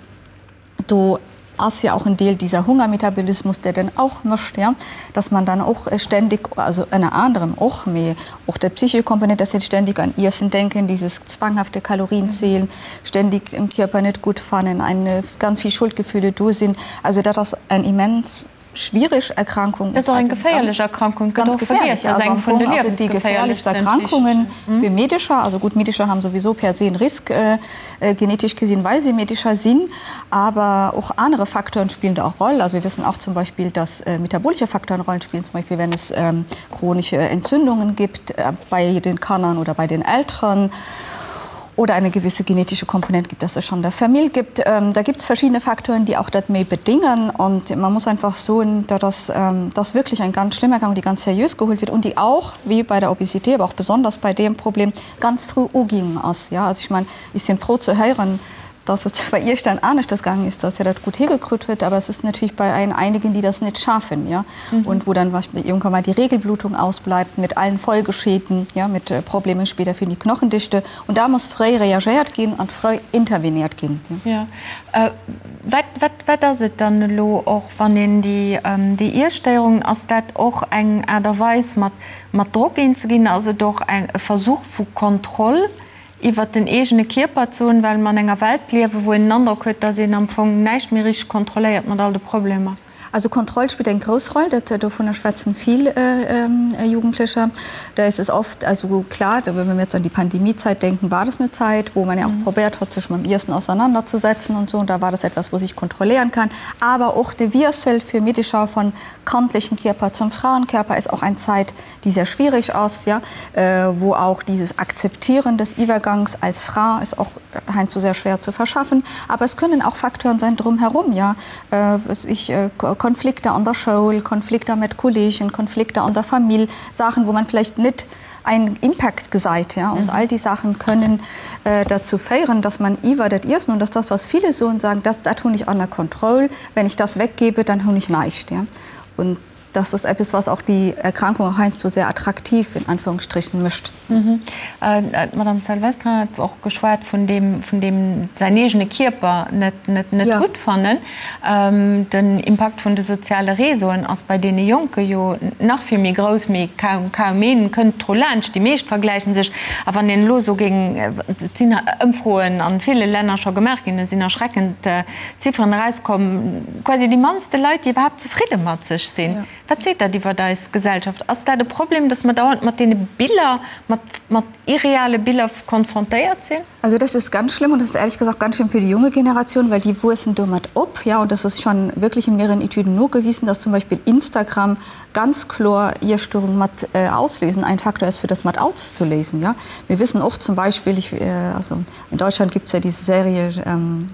Do ass ja auch en Deel dieser Hungermetabolismus, der dann auch mécht, ja, dass man dann och ständig, also ënner anerem och, mee och der psychische Komponent, dass sie ständig an Iessen denken, dieses zwanghafte Kalorienzählen, ständig den Kierper net gutt fannen, eine ganz vill Schuldgefühle do sinn. Also dat ass eng immens schwierig Erkrankung. Dat ass och eng geféierlech Erkrankung, gëtt och vergiess, dat ass eng vun de liewensgeféierlechsten Erkrankungen fir Meedecher. Also gutt, Meedecher haben sowieso per se en Risk genetisch gesinn, well se Meedecher sinn. Aber och anere Facteuren spillen da och Roll. Also wir wissen auch zum Beispiel, dass metabolische Facteuren Rollen spielen, zum Beispiel wenn es chronische Entzündungen gibt bei den Kannern oder bei den Elteren. oder eine gewisse genetische Komponent gibt, dass es schon der Famill gibt. Ähm, da gibt es verschiedene Faktoren, die auch dat méi bedingen und man muss einfach soen, dat ass ähm, das wirklich eng ganz schlimm Erkrankung, die ganz seriös geholt wird und die auch, wie bei der Obesität, aber auch besonders bei dem Problem, ganz früh uging ass. Ja, also ich mein, ich sinn froh zu héieren, dass et bei Iech dann aneschters gaangen ist, dass Dir dat gut higekritt huet, aber es ist natürlich bei ein einigen, die das net schaffen, ja, mhm. und wo dann was, irgendwann mal die Regelblutung ausbleibt mit allen Folgeschäden, ja, mit äh, Problemen später für die Knochendichte und da muss fréi reagéiert ginn an fréi interveniert ginn. Ja. Ja. Äh, wat, wat, wat ass et dann elo och, wann een déi, ähm, déi Iesstéierungen, ass dat och eng Aart a Weis mat, mat Drock eenzeginn, ass et och eng, e Versuch vu Kontroll iwwert den eegene Kierper ze hunn, well mer an enger Welt liewen, wou een den Androck huet, dass een am Fong näischt méi richteg kontrolléiert mat all de Problemer. Also Kontroll spillt eng grouss Roll, dat dovunner schwätzen vill Jugendlecher. Da ist es oft, also klar, wenn wir jetzt an die Pandemiezeit denken, war das eine Zeit, wo man ja auch probiert hat, sich mam Iessen auseinanderzusetzen und so, und da war das etwas, wo sich kontrollieren kann. Aber och de Wiessel fir Meedecher von kandlichen Kierper zum Frauenkörper ist auch eng Zeit, die sehr schwierig ass, ja, wo auch dieses Akzeptieren des Iwwergangs als Fra ist auch heiansdo sehr schwer zu verschaffen. Aber es können auch Facteuren sein drumherum, ja, was ich, Konflikter an der Schoul, Konflikter mit Kollegen, Konflikter an der Famill, Sachen, wo man vielleicht net einen Impact gesait, ja. Und all die Sachen können dazu féieren, dass man iwwer dat Iessen, und das ist das, was viele soen, sagen, das, dat hunn ech ënner Kontroll, wenn ich das weggebe, dann hunn ech näischt, ja. Und. Das ist etwas, was auch die Erkrankung heinsdo sehr attraktiv in Anführungsstrichen mischt. D'Madame Salvestrin hat och geschwat vun deem, vun deem säin eegene Kierper net, net, net gutt fannen. Den Impakt vun de soziale Réseauen ass bei deene Jonke jo nach vill méi grouss, mee kaum, kaum een kënnt dru laanscht. Déi meescht vergläichen sech. A wann een elo esou géing, et sinn Ëmfroen a ville Länner scho gemaach ginn, et sinn erschreckend Zifferen erauskomm, quasi déi mannste Leit, déi iwwerhaapt zefridde mat sech sinn. Wat seet dat iwwert eis Gesellschaft? Ass dat e Problem, dass mer dauernd mat deene Biller, mat, mat irreale Biller konfrontéiert sinn? Also das ist ganz schlimm und das ist ehrlich gesagt ganz schlimm für die junge Generation, weil die wuessen domat op. Ja, und das ist schon wirklich in mehreren Etüden nogewiesen, dass zum Beispiel Instagram ganz kloer Iesstörung mat auslösen, ein Faktor ist fir das mat auszulesen. Ja, mir wissen och zum Beispiel, ich, also In Deutschland gibt es ja diese Serie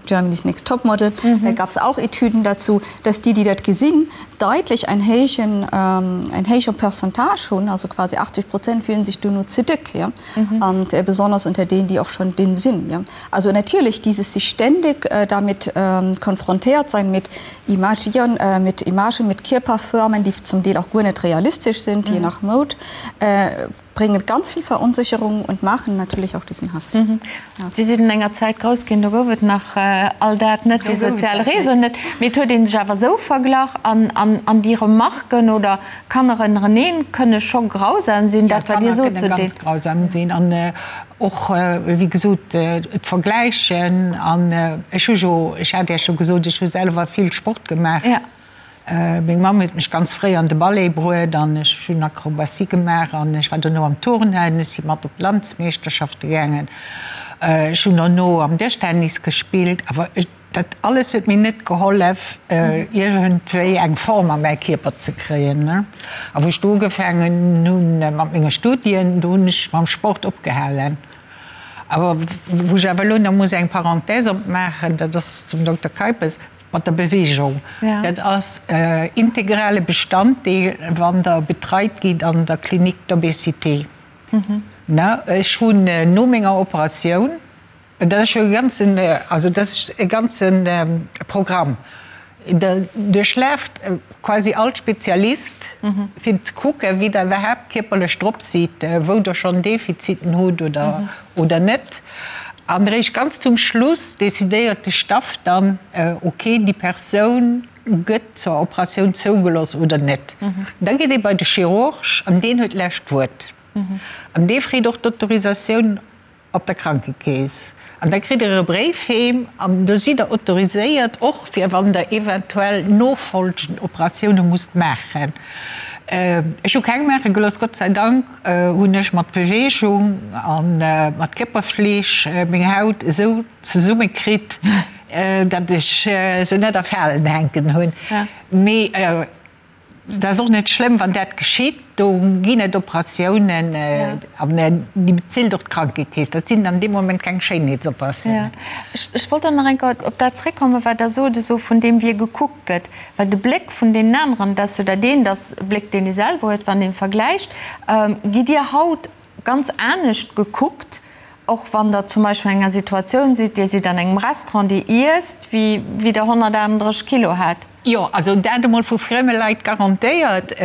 Germany's Next Topmodel, da gab es auch Etüden dazu, dass déi, déi dat gesinn, deutlich en héijen, en héije Pourcentage hunn, also quasi 80 Prozent fillen sich duerno ze déck, ja, und besonders unter denen, die auch schon dünn sinn, ja. Also natierlech dieses sich ständig damit konfrontéiert sein mit Imagieren, mit Imagen, mit Kierperförmen, déi zum Deel auch guer net realistesch sind, je nach Mode, bringen ganz viel Verunsicherung und machen natürlich auch diesen Hass. Si sinn an enger Zäit grouss ginn, do gouf et nach all dat net, déi sozial Réseauen net, mee et huet ee sech awer esou verglach an an déi Remarken oder Kanner ënnereneen kënne scho grausam sinn, dat wat Dir sot zu deem. Kanner kënne ganz grausam sinn an och wéi gesot d'Vergläichen an ech hu jo, ech hat Iech jo gesot, ech hu selwer vill Sport gemaach. Meng Mamm huet mech ganz fréi an de Ballet bruet an ech hunn Akrobatie gemaach an ech war dono am Turnen, ech si mat op d'Landsmeeschterschafte gaangen. Ech hunn dono am Dëschtennis gespillt, awer dat alles huet mir net gehollef, iergendwéi eng Form a mäi Kierper ze kréien. A wou ech du ugefaangen hunn mat menge Studien, do hunn ech mam Sport opgehalen. Awer wou ech awer elo nach muss eng Parenthèse opmaachen, dat ass zum Dokter Keipes, Mat der Bewegung. Dat ass integrale Bestanddeel, wann Der betreit gitt an der Clinique d'obésité. Ech hunn no menger Operatioun, dat ass jo e ganzen, also dat ass e ganze Programm, Der duerchlaaft quasi all Spezialist, fir ze kucken, wéi Der iwwerhaapt kierperlech drop sidd, wou Der schonn Defiziten hutt oder net. An eréischt ganz zum Schluss decidéiert de Staff dann, ok, déi Persoun gëtt zur Operatioun zougelooss oder net. Da geet ee bei de Chirurg an deen huet d'lescht Wuert. An dee freet och d'Autorisatioun op der Krankekeess. An da kritt Der e Bréif heem an do sidd Der autoriséiert, och fir wann Der eventuell nofolgend Operatioune musst maachen. Ech hu keng maache gelooss, Gott sei Dank. Hunn ech mat Beweegung a mat Kierperfleeg meng Haut esou zesumme kritt, datt ech se net a Falen hänken hunn. Mee dat ass och net schlëmm, wann dat geschitt. Do ginn et Operatiounen an déi bezilt och d'Krankekeess. Dat sinn dann dee Moment keng Schéinheetsoperatiounen. Ech wollt dann nach eng Kéier op dat zréckkommen, wat Der sot, esou vun deem wie gekuckt gëtt. Well de Bléck vun deenen aneren, dat ass jo dat eent, ass e Bléck, deen ee selwer huet, wann ee vergläicht. Gitt Dir haut ganz anescht gekuckt, och wann Der zum Beispill an enger Situatioun sidd, Dir sidd an engem Restaurant, Dir iesst, wéi wéi Der 138 Kilo hat? Jo, also dat emol vu frieme Leit garantéiert,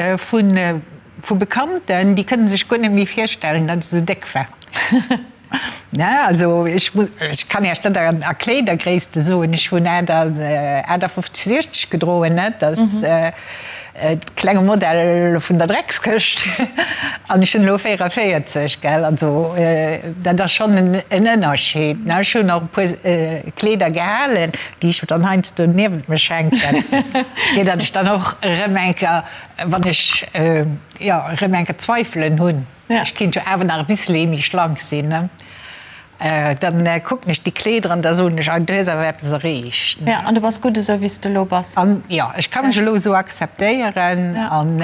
vu Bekannten, déi kënne sech guer net méi virstellen, datt ech esou déck war. Ne, also ech muss, ech kann Iech dat a Kleedergréisste soen, ech hunn 58, 60 gedroen, ne, dat ass e klenge Modell vun der Dreckskëscht an ech hunn elo 44, gell, also dat ass schonn en Ënnerscheed, ne. Ech hunn och e puer Kleeder gehalen, déi ech dann heiansdo niewent mech hänken, fir datt ech dann och erëm eng Kéier, wann ech, jo, erëm eng Kéier Zweifelen hunn. Ech kinnt jo awer nach e bissele méi schlank sinn, ne? Dann kucken ech déi Kleeder an da soen ech, ah, du hues awer eppes erreecht, ne? Ja, an du bass gutt esou, wéi s de elo bass. An jo, ech ka mech elo esou akzeptéieren an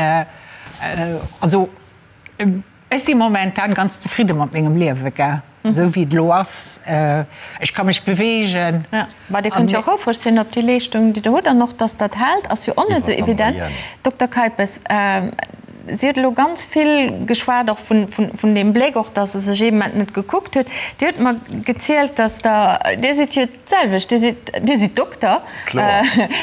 also ech si momentan ganz zefridde mat mengem Liewe, gell, esou wéi et elo ass. Ech ka mech beweegen. Ja, bah, Dir kënnt jo och houfreg sinn op déi Leeschtung, déi Der hutt an och, dass dat hält, ass jo och net esou evident. Dokter Keipes. Si huet elo ganz vill geschwat och vun, vun, vun deem Bléck och, dass se sech ee Moment net gekuckt huet. Dir hutt mer gezielt, dass Der, Dir sidd jo d'selwecht, Dir sidd, Dir sidd Dokter. Kloer.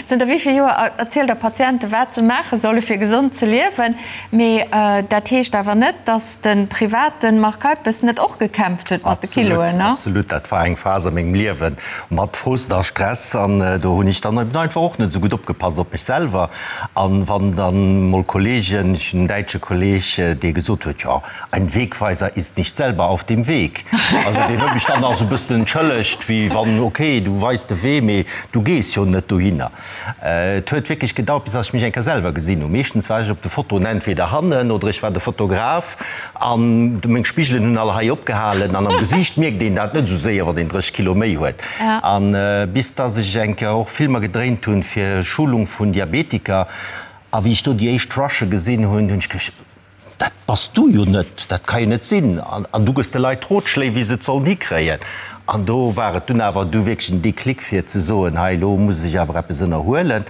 Zënter wéi vill Joer erzielt Der Patiente wat se maache solle fir gesond ze liewen. Mee dat heescht awer net, dass de private Marc Keipes net och gekämpft huet mat de Kiloen, ne? Absolut, dat war eng Phas a mengem Liewen mat Frust a Stress an do hunn ech dann eben einfach och net esou gutt opgepasst op mech selwer. An wann dann mol Kollegen, ech hunn en däitsche Kolleg, dee gesot huet, jo, ein Wegweiser ist nicht selber auf dem Weg. Also deen huet mech dann nach esou e bëssen entschëllegt, wéi wann, okay, du weis de Wee, mee du gees jo net dohinner. Et huet wierklech gedauert, bis dass ech mech eng Kéier selwer gesinn hunn. Meeschtens war ech op de Fotoen entweder hannen oder ech war de Fotograf an meng Spigelen hunn all hei opgehalen an am Gesiicht mierkt een dat net esou séier, wann een 30 Kilo méi huet. An bis dass ech eng Kéier och Filmer gedréint hunn fir Schulung vun Diabetiker a wéi ech do déi éischt Rushe gesinn hunn, hunn ech geduecht, Dat bass du jo net, dat ka jo net sinn. An du gëss de Leit Rotschléi, wéi se et sollen hikréien. An do war et dunn awer du wierklech en Déclic fir ze soen, hei elo muss ech awer eppes ënnerhuelen.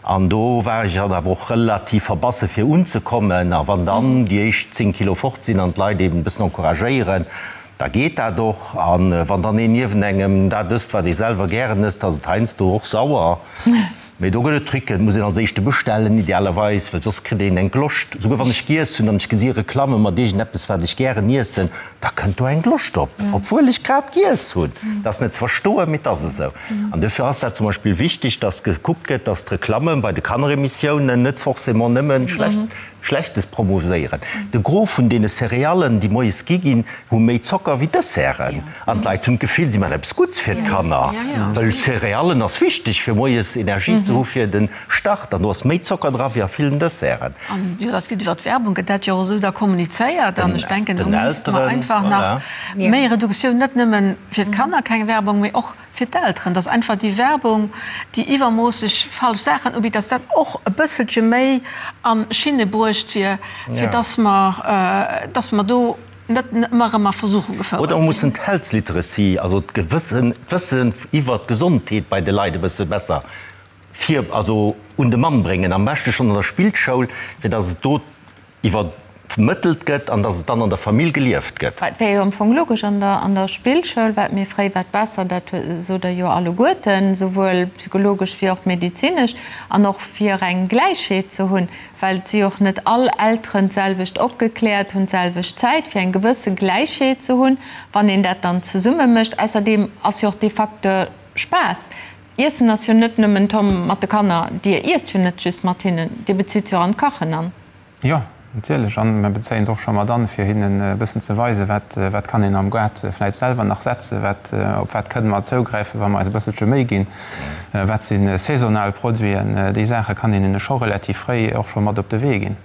An do war ech dann awer och relativ verbasse fir unzekommen. A wann dann déi éischt 10 Kilo fort sinn an d'Leit eben e bëssen encouragéieren, da geet dat och. A wann dann een niewent engem dat ësst, wat ee selwer gären ësst, ass et heiansdo och sauer. Mee do gëtt et Tricken, et muss een als éischte bestellen, idealerweis, well soss kritt een eng Gloscht. Souguer wann ech giess hunn an ech gesi Reklamme mat iergendeppes, wat ech gären iessen, da kënnt do eng Gloscht op, obwuel ech grad giess hunn. Dat ass net ze verstoen, mee et ass esou. An duerfir ass dat zum Beispill wichteg, dass gekuckt gëtt, dass d'Reklamme bei de Kanneremissiounen net forcément nëmme schlecht Schlechtes promovéieren. De Gros vun deene Céréallen, déi moies gi ginn, hu méi Zocker wéi Desserten. An d'Leit hunn d'Gefill, si maachen eppes Gutts fir d'Kanner, well Céréallen ass wichteg, fir moies Energie ze hu fir de Start. An do ass méi Zocker dra wéi a villen Desserten. An jo, dat gëtt iwwer d'Werbung gëtt dat jo och esou da kommunizéiert. An ech denken, do misste mer einfach nach méi Reduktioun, net nëmme fir d'Kanner keng Werbung, mee och fir d'Elteren, dass einfach déi Werbung, déi iwwermoosseg falsch Saachen ubitt, dass dat och e bësselche méi a Schinne bruecht wier, fir dass mer, dass mer do net ëmmer erëm a Versuchung gefouert Oder mer ginn. mussen d'Health Literacy, also d'Gewëssen, d'Wëssen iwwert d'Gesondheet bei de Leit e bësse besser vir, also un de Mann bréngen, am beschte schonn an der Spillschoul, fir dass et do iwwermëttelt gëtt an dass et dann an der Famill gelieft gëtt. Et wär jo am Fong logesch an der an der Spillschoul, wat méi fréi, wat besser, dat sot Der jo alleguerten, souwuel psychologesch wéi och medezinesch, an och fir eng Gläichheet ze hunn, well et si och net all Elteren d'selwecht opgekläert, hunn d'selwecht Zäit, fir eng gewësse Gläichheet ze hunn, wann een dat dann zesumme mécht. Ausserdeem ass jo och dee Facteur Spaass. Iessen ass jo net nëmmen, Tom, mat de Kanner, Dir iesst jo net just mat hinnen, Dir bezitt se och an d'Kachen an. Jo, natierlech. An mir bezéien se och scho mat an, fir hinnen e bëssen ze weisen, wat, wat kann een am Gaart vläit selwer nach setzen, wat, op wat kënne mer zougräifen, wa mer eis e bësselche Méi ginn, wat si saisonal Produiten. Déi Saache kann een hinne scho relativ fréi och scho mat op de Wee ginn.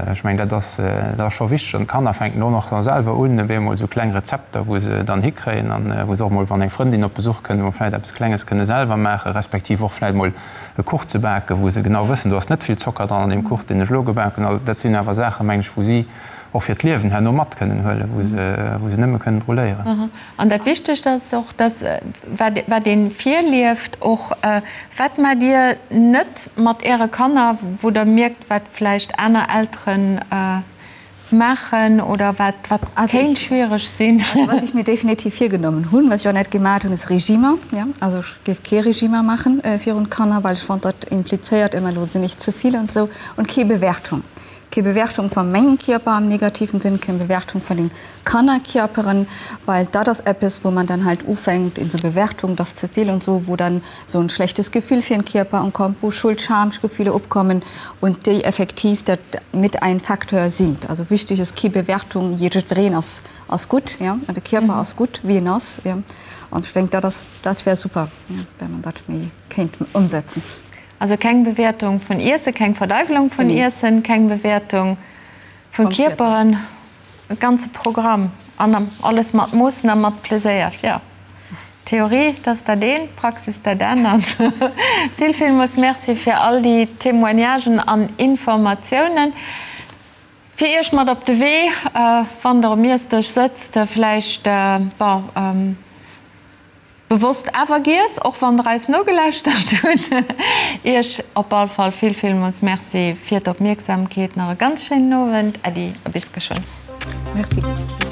Ech mengen, dat ass, dat ass scho wichteg. An d'Kanner fänken och nach selwer un, op eemol esou kleng Rezepter, wou se dann hikréien an wou se och mol, wann eng Frëndin op Besuch kënnt, mol vläit eppes Klenges kënne selwer maachen, respektiv och vläit mol e Kuch ze baken, wou se genau wëssen, do ass net vill Zocker dran an deem Kuch, deen ech elo gebaken hunn. Dat sinn awer Saachen, mengen ech, wou si och fir d'Liewen herno mat kënnen huelen, wou se, wou se nëmme kënnen dru léieren. An dat Wichtegst ass och, dass wat, wat ee virlieft och, wat maacht Dir net mat Äre Kanner, wou Der mierkt, wat vläicht aner Elteren maachen oder wat wat kéint schwiereg sinn? Also wat ech mir definitiv virgenommen hunn, wat ech och net gemaat hunn, ass Regimer. Ja, also ech géif kee Regimer maachen virun d'Kanner, well ech fonnt dat implizéiert ëmmer elo sinn ech ze vill an esou und kee Bewertung. Kee Bewertung va mengem Kierper am negativen Sënn, keng Bewertung vun den Kannerkierperen, well dat ass eppes wou man dann halt ufänkt in so Bewertung, dat ass ze vill und so, wou dann sou en schlechtes Gefühl fir den Kierper ankommt, wou Schuld, Schamgefühle opkommen und déi effektiv dat mit ein Facteur sind. Also wichtig ass kee Bewertung, jiddwereen ass ass gutt, ja, an de Kierper ass gutt wéi en ass, ja, an ech denk dat ass dat wär super, ja, wenn man dat méi kéint ëmsetzen. Also keng Bewäertung vun Iessen, keng Verdeiwelung vun Iessen, keng Bewäertung vun Kierperen, e ganze Programm an alles mat Moossen a mat Pleséier. Jo, Theorie, dat ass dat eent, Praxis dat anert. Vill, villmools Merci fir all déi Témoignagen an Informatiounen. Fir Iech mat op de Wee, wann Der um Iessdësch sëtzt, vläicht, bon. Bewosst awer giess, och wann der eis nogelauschtert hutt. Iech op all Fall vill villmools Merci fir d'Opmierksamkeet. Nach e ganz schéinen Owend. Äddi a bis geschwënn. Merci.